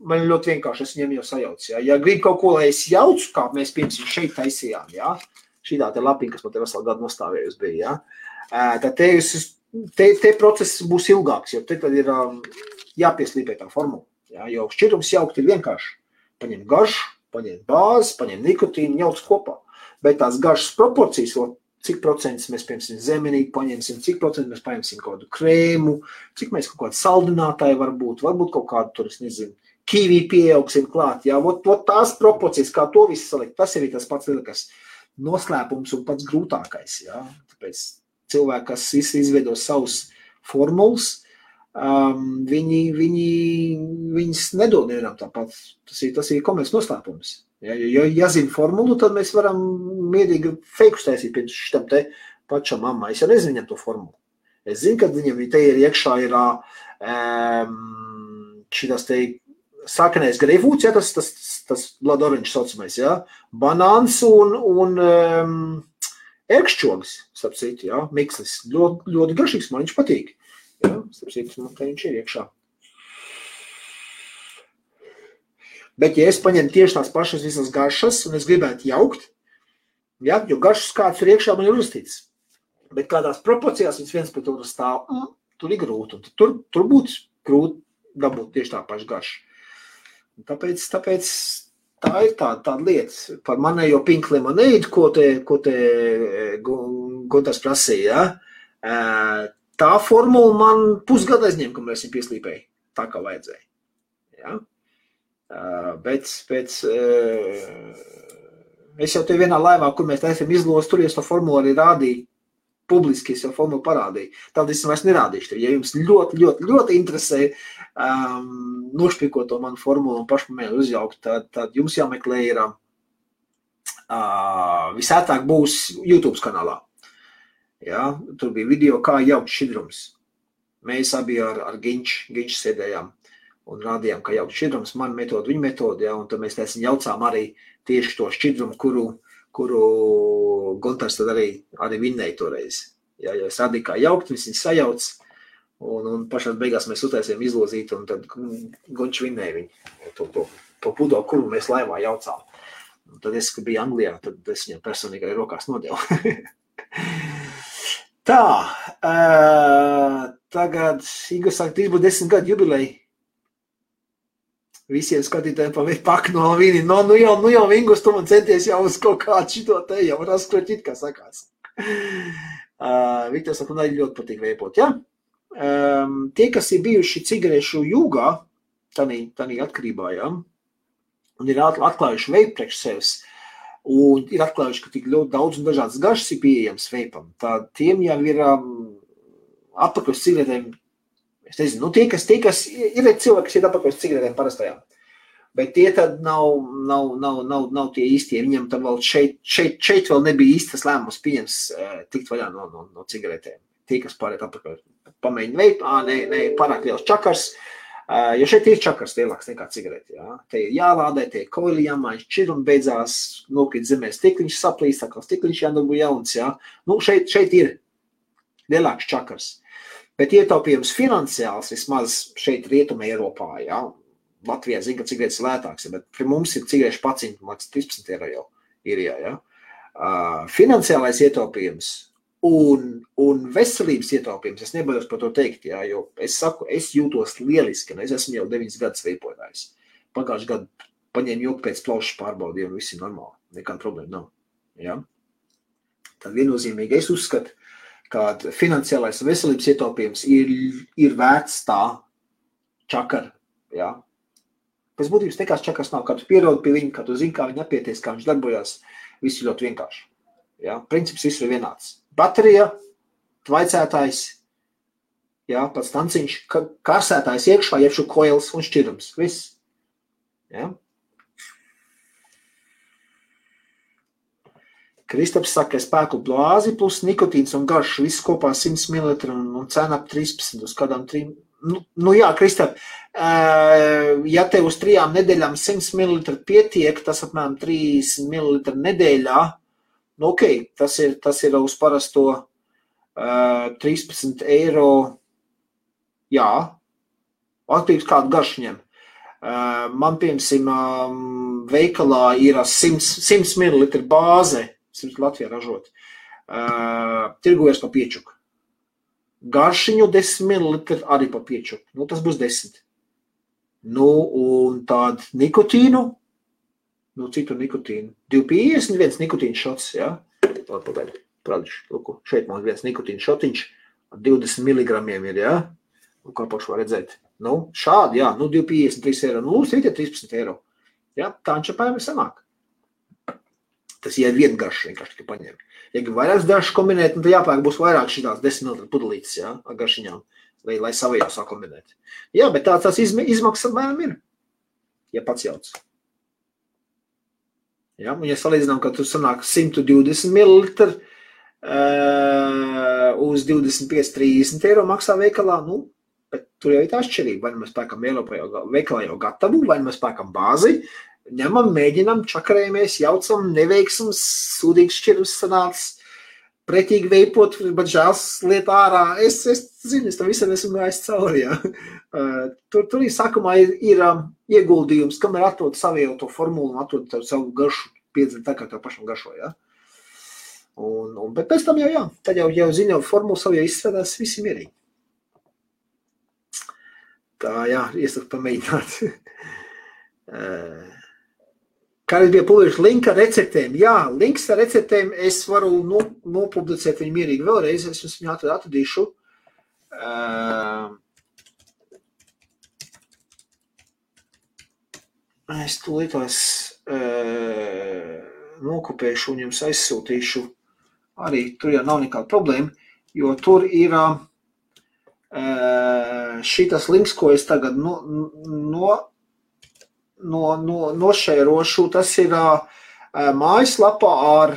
man ļoti vienkārši, es viņiem jau sajaucu. Ja grib kaut ko, lai es jaucu, kā mēs piemēram šeit taisījām, ja? Šitā te lapiņa, kas man te veselu gadu nostāvējusi bija, ja? Tad te process būs ilgāks, jo te tad ir jāpieslīpē tā formula. Ja? Jo šķidrums jaukt ir vienkārši. Paņem garšu, paņem bāzi, paņem nikotīnu, jauc kopā. Bet tās garšas proporcijas, cik procentus mēs, piemēram, zemenīti paņemsim, cik procentus mēs paņemsim kaut kādu krēmu, cik mēs kaut kādu saldinātāju varbūt kaut kādu tur, es nezinu, kīvī pieaugsim klāt. Ja? Vot tās proporcijas, kā to visu salikt, tas ir tas pats lielākais noslēpums un pats grūtākais. Ja? Tāpēc cilvēki, kas izveido savus formulas, viņas nedod nevienam tāpat. Tas ir komerces noslēpums. Ja zina formulu, tad mēs varam mierīgi feikus taisīt pirms šitam te pašam mammai. Es jau nezinu viņam to formulu. Es zinu, ka viņam te ir iekšā ir šitas te sākanais greifūts, ja, tas blood orange saucamais, ja, banāns un ērkšķogs, starp citu, ja, mikslis. Ļoti garšīgs, man viņš patīk. Ja, starp citu, man te viņš ir iekšā. Bet, ja es paņemu tieši tās pašas visas garšas, un es gribētu jaukt, ja, jo garšas kāds tur iekšā man ir uzstīts, bet kādās proporcijās viens pret otru stāv, tur ir grūti, un tur būtu grūti dabūt tieši tā paša garša. Tāpēc tā ir tāda lieta. Par manējo pink lemonade, ko te Gunārs prasīja, tā formula man pusgadu aizņem, kamēr es viņu pieslīpēju, tā kā vajadzēja. Ja? Bet es jau te vienā laivā, kur mēs taisam izlos, tur es to formulu arī rādīju, publiski es jau formulu parādīju. Tad es vairs nerādīšu. Ja jums ļoti, ļoti, ļoti interesē nošpikot to manu formulu un pašpamēju uzjaukt, tad jums jāmeklē ir visētāk būs YouTube kanālā. Ja? Tur bija video, kā jaukt šķidrums. Mēs abi ar Ginču sēdējām un rādījām, kā jaukt šķidrums, man metode, viņa metode, ja, un tad mēs jaucām arī tieši to šķidrumu, kuru Gunārs tad arī vinnēja toreiz. Ja, jo es rādīju, kā jaukt, viņš sajauc, un pašās beigās mēs utaisījām izlozīt, un tad Gunčs vinnēja viņu, to pudeli, kuru mēs laivā jaucām. Un tad es, kad biju Anglijā, tad es viņam personīgi arī rokās nodevu. Tā, tagad Igors saka, būs 10 gadu jubileja. Visiem skatītājiem pak no vīni. Nu jau Ingurs, tu man centies jau uz kaut kādu šito te, jau raskroķīt, kā sakās. Viktors saka, man ļoti patīk veipot, ja? Tie, kas ir bijuši cigarešu jūgā, tanī atkarībā, ja? Un ir atklājuši veipu priekš sevis, un ir atklājuši, ka tik ļoti daudz un dažādas garšas ir pieejams veipam, tad tiem jau ir atpakaļ cigaretēm. Es nezinu, tie, kas ir cilvēki, kas ir apakaļ cigaretēm parastajām, bet tie tad nav tie īstie. Viņam tad vēl šeit vēl nebija īstas lēmums pieņems tikt vaļā no cigaretēm. Tie, kas pārēt apakaļ pamēģina veipu, ne, pārāk liels čakars, jo šeit ir čakars lielāks nekā cigareti. Ja? Te ir jālādē, te ir koili jāmaiņš, šķidrumi beidzās, nokrīt zemē stikliņš saplīst, tā kā stikliņš jādabū jauns. Ja? Nu, šeit ir lielāks čakars. Bet ietaupījums finansiāls vismaz šeit Rietumē Eiropā, ja? Latvijā zina, ka cigaretes ir lētāks, bet pie mums ir cigarešu paciņu maksas 13 eiro jau īrijā, ja? Finansiālais ietaupījums un veselības ietaupījums, es nebaidos par to teikt, ja? Jo es saku, es jūtos lieliski, un es esmu jau 9 gadus veipotājs. Pagājuši gadu paņēmu joku pēc plaušas pārbaudīju, un viss ir normāli, nekāda problēma nav. Ja? Tad viennozīmīgi es uzskatu, ka finansiālais veselības ietaupījums ir vērts tā čakara, ja. Pēc būtības nekās čakars nav, kā tu pierodi pie viņa, kā tu zini, kā viņa apieties, kā viņš darbojās, viss ir ļoti vienkārši. Ja. Princips viss ir vienāds. Baterija, tvaicētājs, ja, pats tanciņš, kārsētājs iekšā, iekšu koils un šķirums, viss. Ja. Kristaps saka, ka spēku blāzi plus nikotīns un garš, viss kopā 100 ml un cena ap 13 uz kādām 3. jā, Kristap, ja tev uz 3 nedēļām 100 ml pietiek, tas apmēram 30 ml nedēļā, nu ok, tas ir uz parasto 13 eiro, jā, atkarīgs kādu garšu ņem. Man, piemēram, veikalā ir 100 ml bāze, 100 Latvijā ražot, tirgojas pa piečuku. Garšiņu 10 ml arī pa piečuku, nu tas būs 10. Nu, un tādu nikotīnu, nu citu nikotīnu, 251 nikotīnu šots, jā? Pagaidi, prādīšu, lūku, šeit man viens nikotīnu šotiņš, 20 mg ir, jā? Nu, kā pašu var redzēt. Nu, šādi, jā, nu 253 eiro, nu, lūdzu, ir 13 eiro. Jā, tā ančapājumi sanāk. Tas ir viena garša, vienkārši tikai paņem. Ja grib vairākas garšas kombinēt, nu, tad jāpērk būs vairāk šitās 10 ml pudelītes, jā, ar garšiņām, lai savajā sakombinēt. Jā, bet tās izmaksas apmēram ir, ja pats jauc. Jā, un ja salīdzinām, ka tu sanāk 120 ml uz 25-30 eiro maksā veikalā, nu, bet tur jau ir tā atšķirība, vai mēs pērkam veikalā jau gatavu, vai mēs pērkam bāzi, ņemam, mēģinam, čakarējamies, jaucam, neveiksums, sūdīgs šķirums sanāc, pretīgi veipot, bet žēls liet ārā. Es zinu, es tam visam esmu gājis cauri, jā. Tur sākumā ir ieguldījums, kamēr atrod savu to formulu un atrod savu garšu, piedzina tā, kā tev pašam garšo, jā. Bet pēc tam jau, jā, tad jau zina formulu savu, jau izstrādās visi mierīgi. Tā, jā, iesaku pamēģināt. Kādreiz bija publiski link ar receptēm. Jā, links ar receptēm es varu nopublicēt viņu mierīgi vēlreiz. Es viņu atradīšu. Es tūlītās nokopēšu un jums aizsūtīšu. Arī tur jau nav nekāda problēma, jo tur ir šitas links, ko es tagad nošērošu, tas ir mājaslapā ar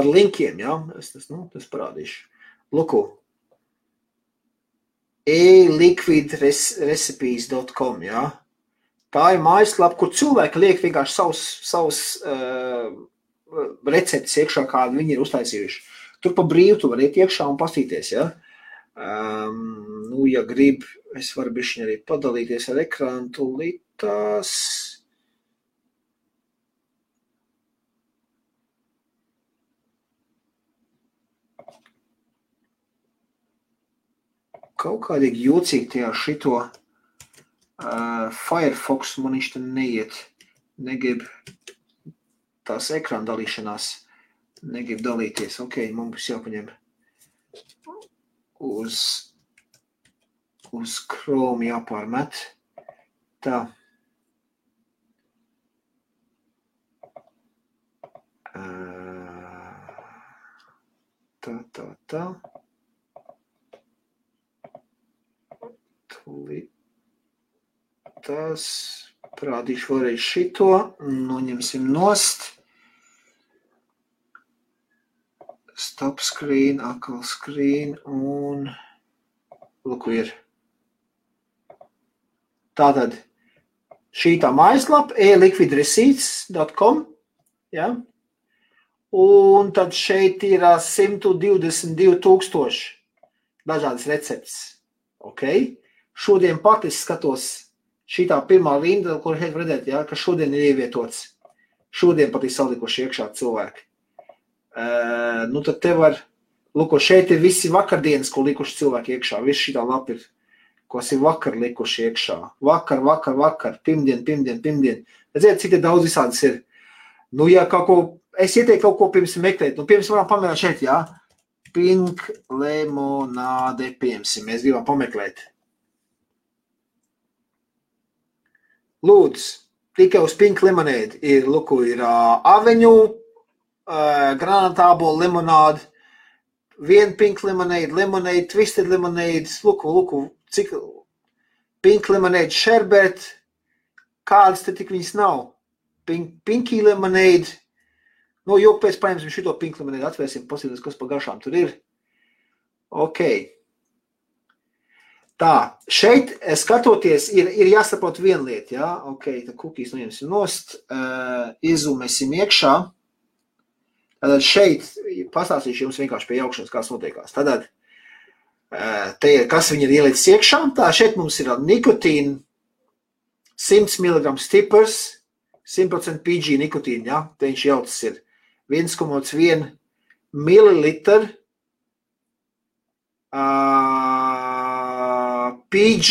linkiem, jā, es parādīšu. Luku, eliquidrecipes.com, jā. Tā ir mājaslapa, kur cilvēki liek vienkārši savus receptes iekšā, kādu viņi ir uztaisījuši. Tur pa brīvu tu var iet iekšā un pastīties, jā. Nu, ja grib, es varu bišķiņ arī padalīties ar ekrānu tūlītās. Kaut kādīgi jūcīgi tajā šito Firefox man viņš te neiet. Negrib tās ekrāna dalīšanās. Negrib dalīties. Ok, man būs jāpaņem uz Chrome jāpārmet. Tā. Tā. Tūlīt. Tas parādīšu vēlreiz šito. Noņemsim nost. Stop screen, atkal screen un lūku ir. Tātad šī tā mājaslapa eliquidreceipts.com, ja? Un tad šeit ir 122,000 dažādas receptes. Ok? Šodien pat es skatos šitā pirmā rinda, kur šeit redzēt, ja, ka šodien ir ievietots. Šodien pat ir salikuši iekšā cilvēki. Nu tad te var, lūko, šeit ir visi vakardienas, ko likuši cilvēki iekšā. Viss šitā lapa ir, kas ir vakar likuši iekšā. Vakar, pirmdien. Redziet, cik te daudz visādas ir. Nu, ja kaut ko, es ieteiktu kaut ko pirms meklēt. Nu, pirms varam pamēģināt šeit, jā. Pink lemonāde, piemēram, mēs gribam pameklēt. Lūdzu, tikai uz Pink lemonade ir, lūko, ir aveņu, granatābola limonāde, viena pink lemonade, twisted lemonade, lūku, cik pink lemonade, sherbet, kādas te tik viņas nav. Pinky lemonade, nu, jo pēc paņemsim šito pink lemonade, atvērsim, pasīties, kas pa garšām tur ir. Ok. Tā, šeit skatoties, ir jāsaprot viena lieta, jā, ok, tad kukīs noņemsim nost, iezumēsim iekšā. Tātad šeit pastāstīšu jums vienkārši pie jaukšanas, kāds notiekās. Tātad, te ir, kas viņi ir ielicis iekšā, tā šeit mums ir nikotīna, 100 mg stiprs, 100% PG nikotīna, jā, te viņš jautas ir 1,1 milliliter, PG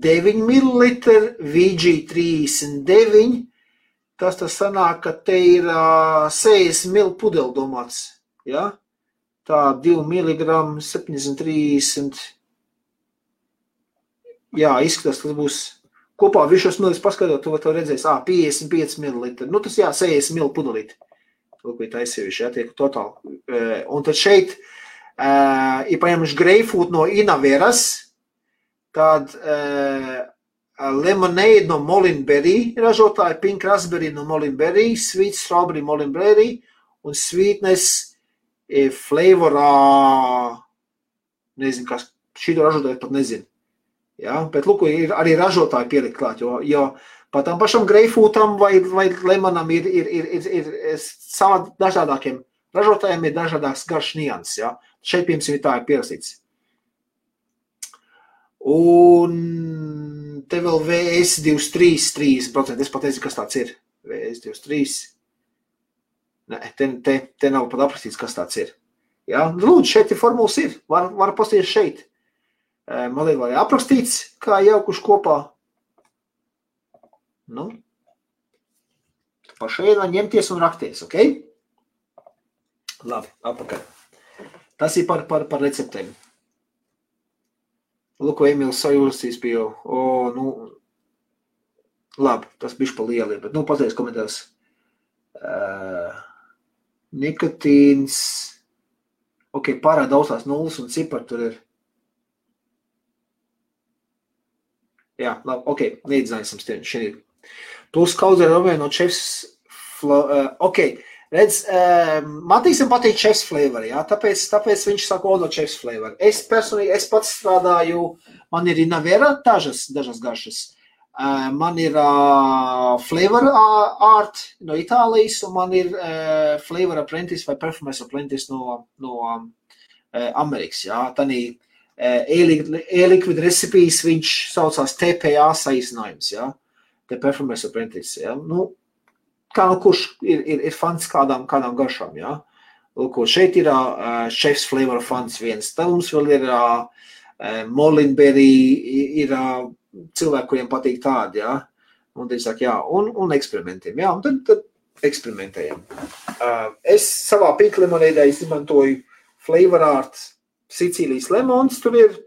9 ml, VG 39, tas sanāk, ka te ir 60 ml pudeli domāts, ja? Tā 2 mg, 730, jā, izskatās, tas būs kopā višos millis paskatot, tu redzēsi, 55 ml, nu tas jā, 60 ml pudelīti, lūk, bija taisījuši, jā, tiek totāli, un tad šeit ir paņemuši greifūt no Inaveras, tad lemonade no Molinberry ražotāji, pink raspberry no Molinberry, sweet strawberry Molinberry un sweetness flavorā, nezinu, kas šito ražotāji pat nezinu. Ja? Bet, lūk, ir arī ražotāji pielikt klāt, jo pat tam pašam greifūtam vai lemonam ir savā dažādākiem ražotājiem ir dažādāks garš nianses, ja? Šeit, piemēram, tā ir pierakstīts. Un te vēl VS23, 30%, es pat nezinu, kas tāds ir. VS23. Nē, te nav pat aprakstīts, kas tāds ir. Ja? Lūdzu, šeit ir formulas ir. Var pastīties šeit. Man liek, vai aprakstīts, kā jaukuši kopā. Nu, pa šeit var ņemties un rakties, ok? Labi, apakaļ. Tas ir par receptēm. Lūk, Emīls sajūstīs pie jau. Nu, labi, tas bišķi pa lieli, bet, pateiks komentārs. Nikotīns. Ok, pārāk daudz tās nulles un cipari tur ir. Jā, labi, ok, neizdzināsim šeit. Plus kaudzē romē no chefs ok, redz, Matīsam patīk chefs flavor, jā, tāpēc viņš saka no chefs flavor. Es personīgi, es pats strādāju, man ir Inavera dažas garšas. Man ir Flavor Art no Itālijas, un man ir Flavor Apprentice vai Performance Apprentice no Amerikas, jā. Tanī e-liquid recipes viņš saucās TPA saīsinājums, jā. The Performance Apprentice, jā. Nu, kā kurš ir fans kādām garšām, jā. Lūk, šeit ir Chef's Flavor fans viens. Tad mums vēl ir Molinberry, ir cilvēki, kuriem patīk tādi, jā. Un tad saka, jā, un eksperimentiem, jā. Un tad eksperimentējam. Es savā pink lemonēdē izmantoju Flavor Art Sicīlijas lemons, tur ir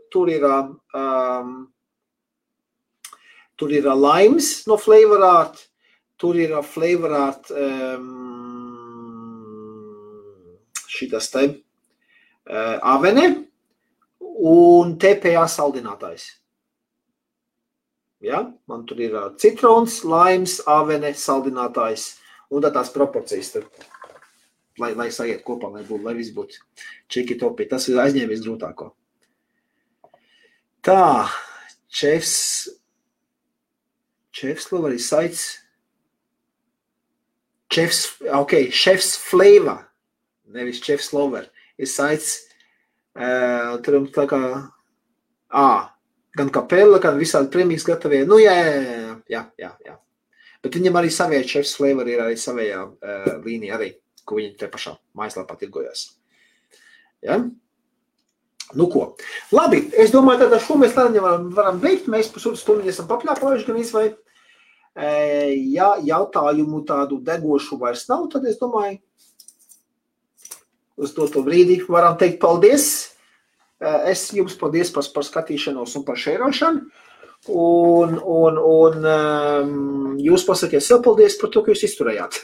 limes no Flavor Art, tur ir Flavor Art šitas te avene un TPA saldinātājs. Ja? Man tur ir citrons, limes, avene, saldinātājs un tās proporcijas, lai sajiet kopā, lai viss būtu čiki-topi. Tas ir aizņēmies grūtāko. Tā, chefs flavor ir saits. Chefs flavor, nevis chefs flavor, ir saits. Tur tā kā, gan kapela, gan visādi prēmijas gatavie. Nu, jā. Bet viņam arī savie chefs flavor ir arī savējā līnija arī, ko viņi te pašā mājaslapā tirgojās. Ja? Nu ko. Labi, es domāju, tad ar šo mēs varam beigt. Mēs pusotru stundu esam papļāpājuši gan izvai. Ja jautājumu tādu degošu vairs nav, tad es domāju, uz to brīdi varam teikt paldies. Es jums paldies par skatīšanos un par šērošanu. Un jūs pasakiet sev paldies par to, ka jūs izturējāt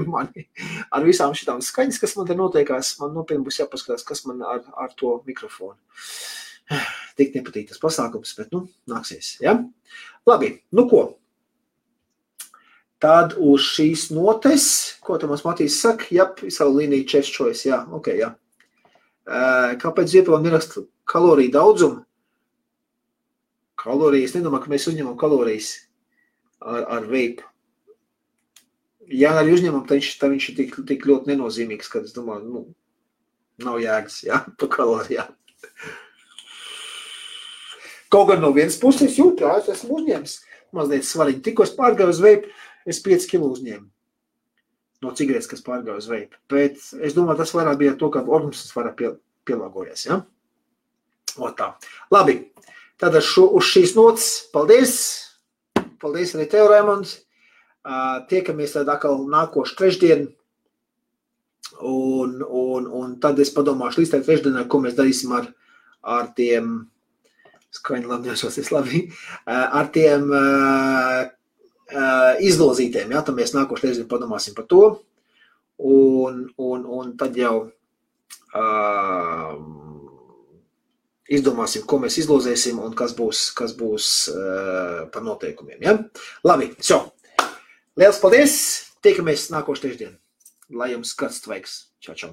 mani ar visām šitām skaņas, kas man te notiekās. Man nopietni būs jāpaskatās, kas man ar to mikrofonu. Tik nepatīk tas pasākums, bet, nāksies, ja? Labi, nu ko? Tad uz šīs notes, ko tam Matīs saka, savu līniju chef's choice, jā, ok, jā. Kāpēc Ziepēlam neraksta kaloriju daudzumu? Kalorijas, nedomā, ka mēs uzņemam kalorijas ar vape. Ja arī uzņemam, tad viņš ir tik ļoti nenozīmīgs, kad es domāju, nav jēgas, jā, pa kalorijām. Kaut gan no vienas puses jūt, jā, es esmu uzņēmis mazliet svariņu. Tikko es pārgāju uz vape, es 5 kilo uzņēmu no cigaretes, kas pārgāju uz vape. Bet es domāju, tas vairāk bija to, ka organisms vairāk pielāgojies, jā. O tā. Labi, tātad uz šīs notas, paldies. Paldies arī tev, Raimonds. Tiekamies tad atkal nākošu trešdienu, un tad es padomāšu līdz tā trešdienai, ko mēs darīsim ar tiem, skaņi labi neesosies labi, ar tiem izlozītiem, jā, tad mēs nākošu trešdienu padomāsim par to, un tad jau izdomāsim, ko mēs izlozēsim un kas būs par noteikumiem, jā. Labi, Liels paldies! Tiekamies nākošu trešdienu. Lai jums skats tvaiks. Čau, čau!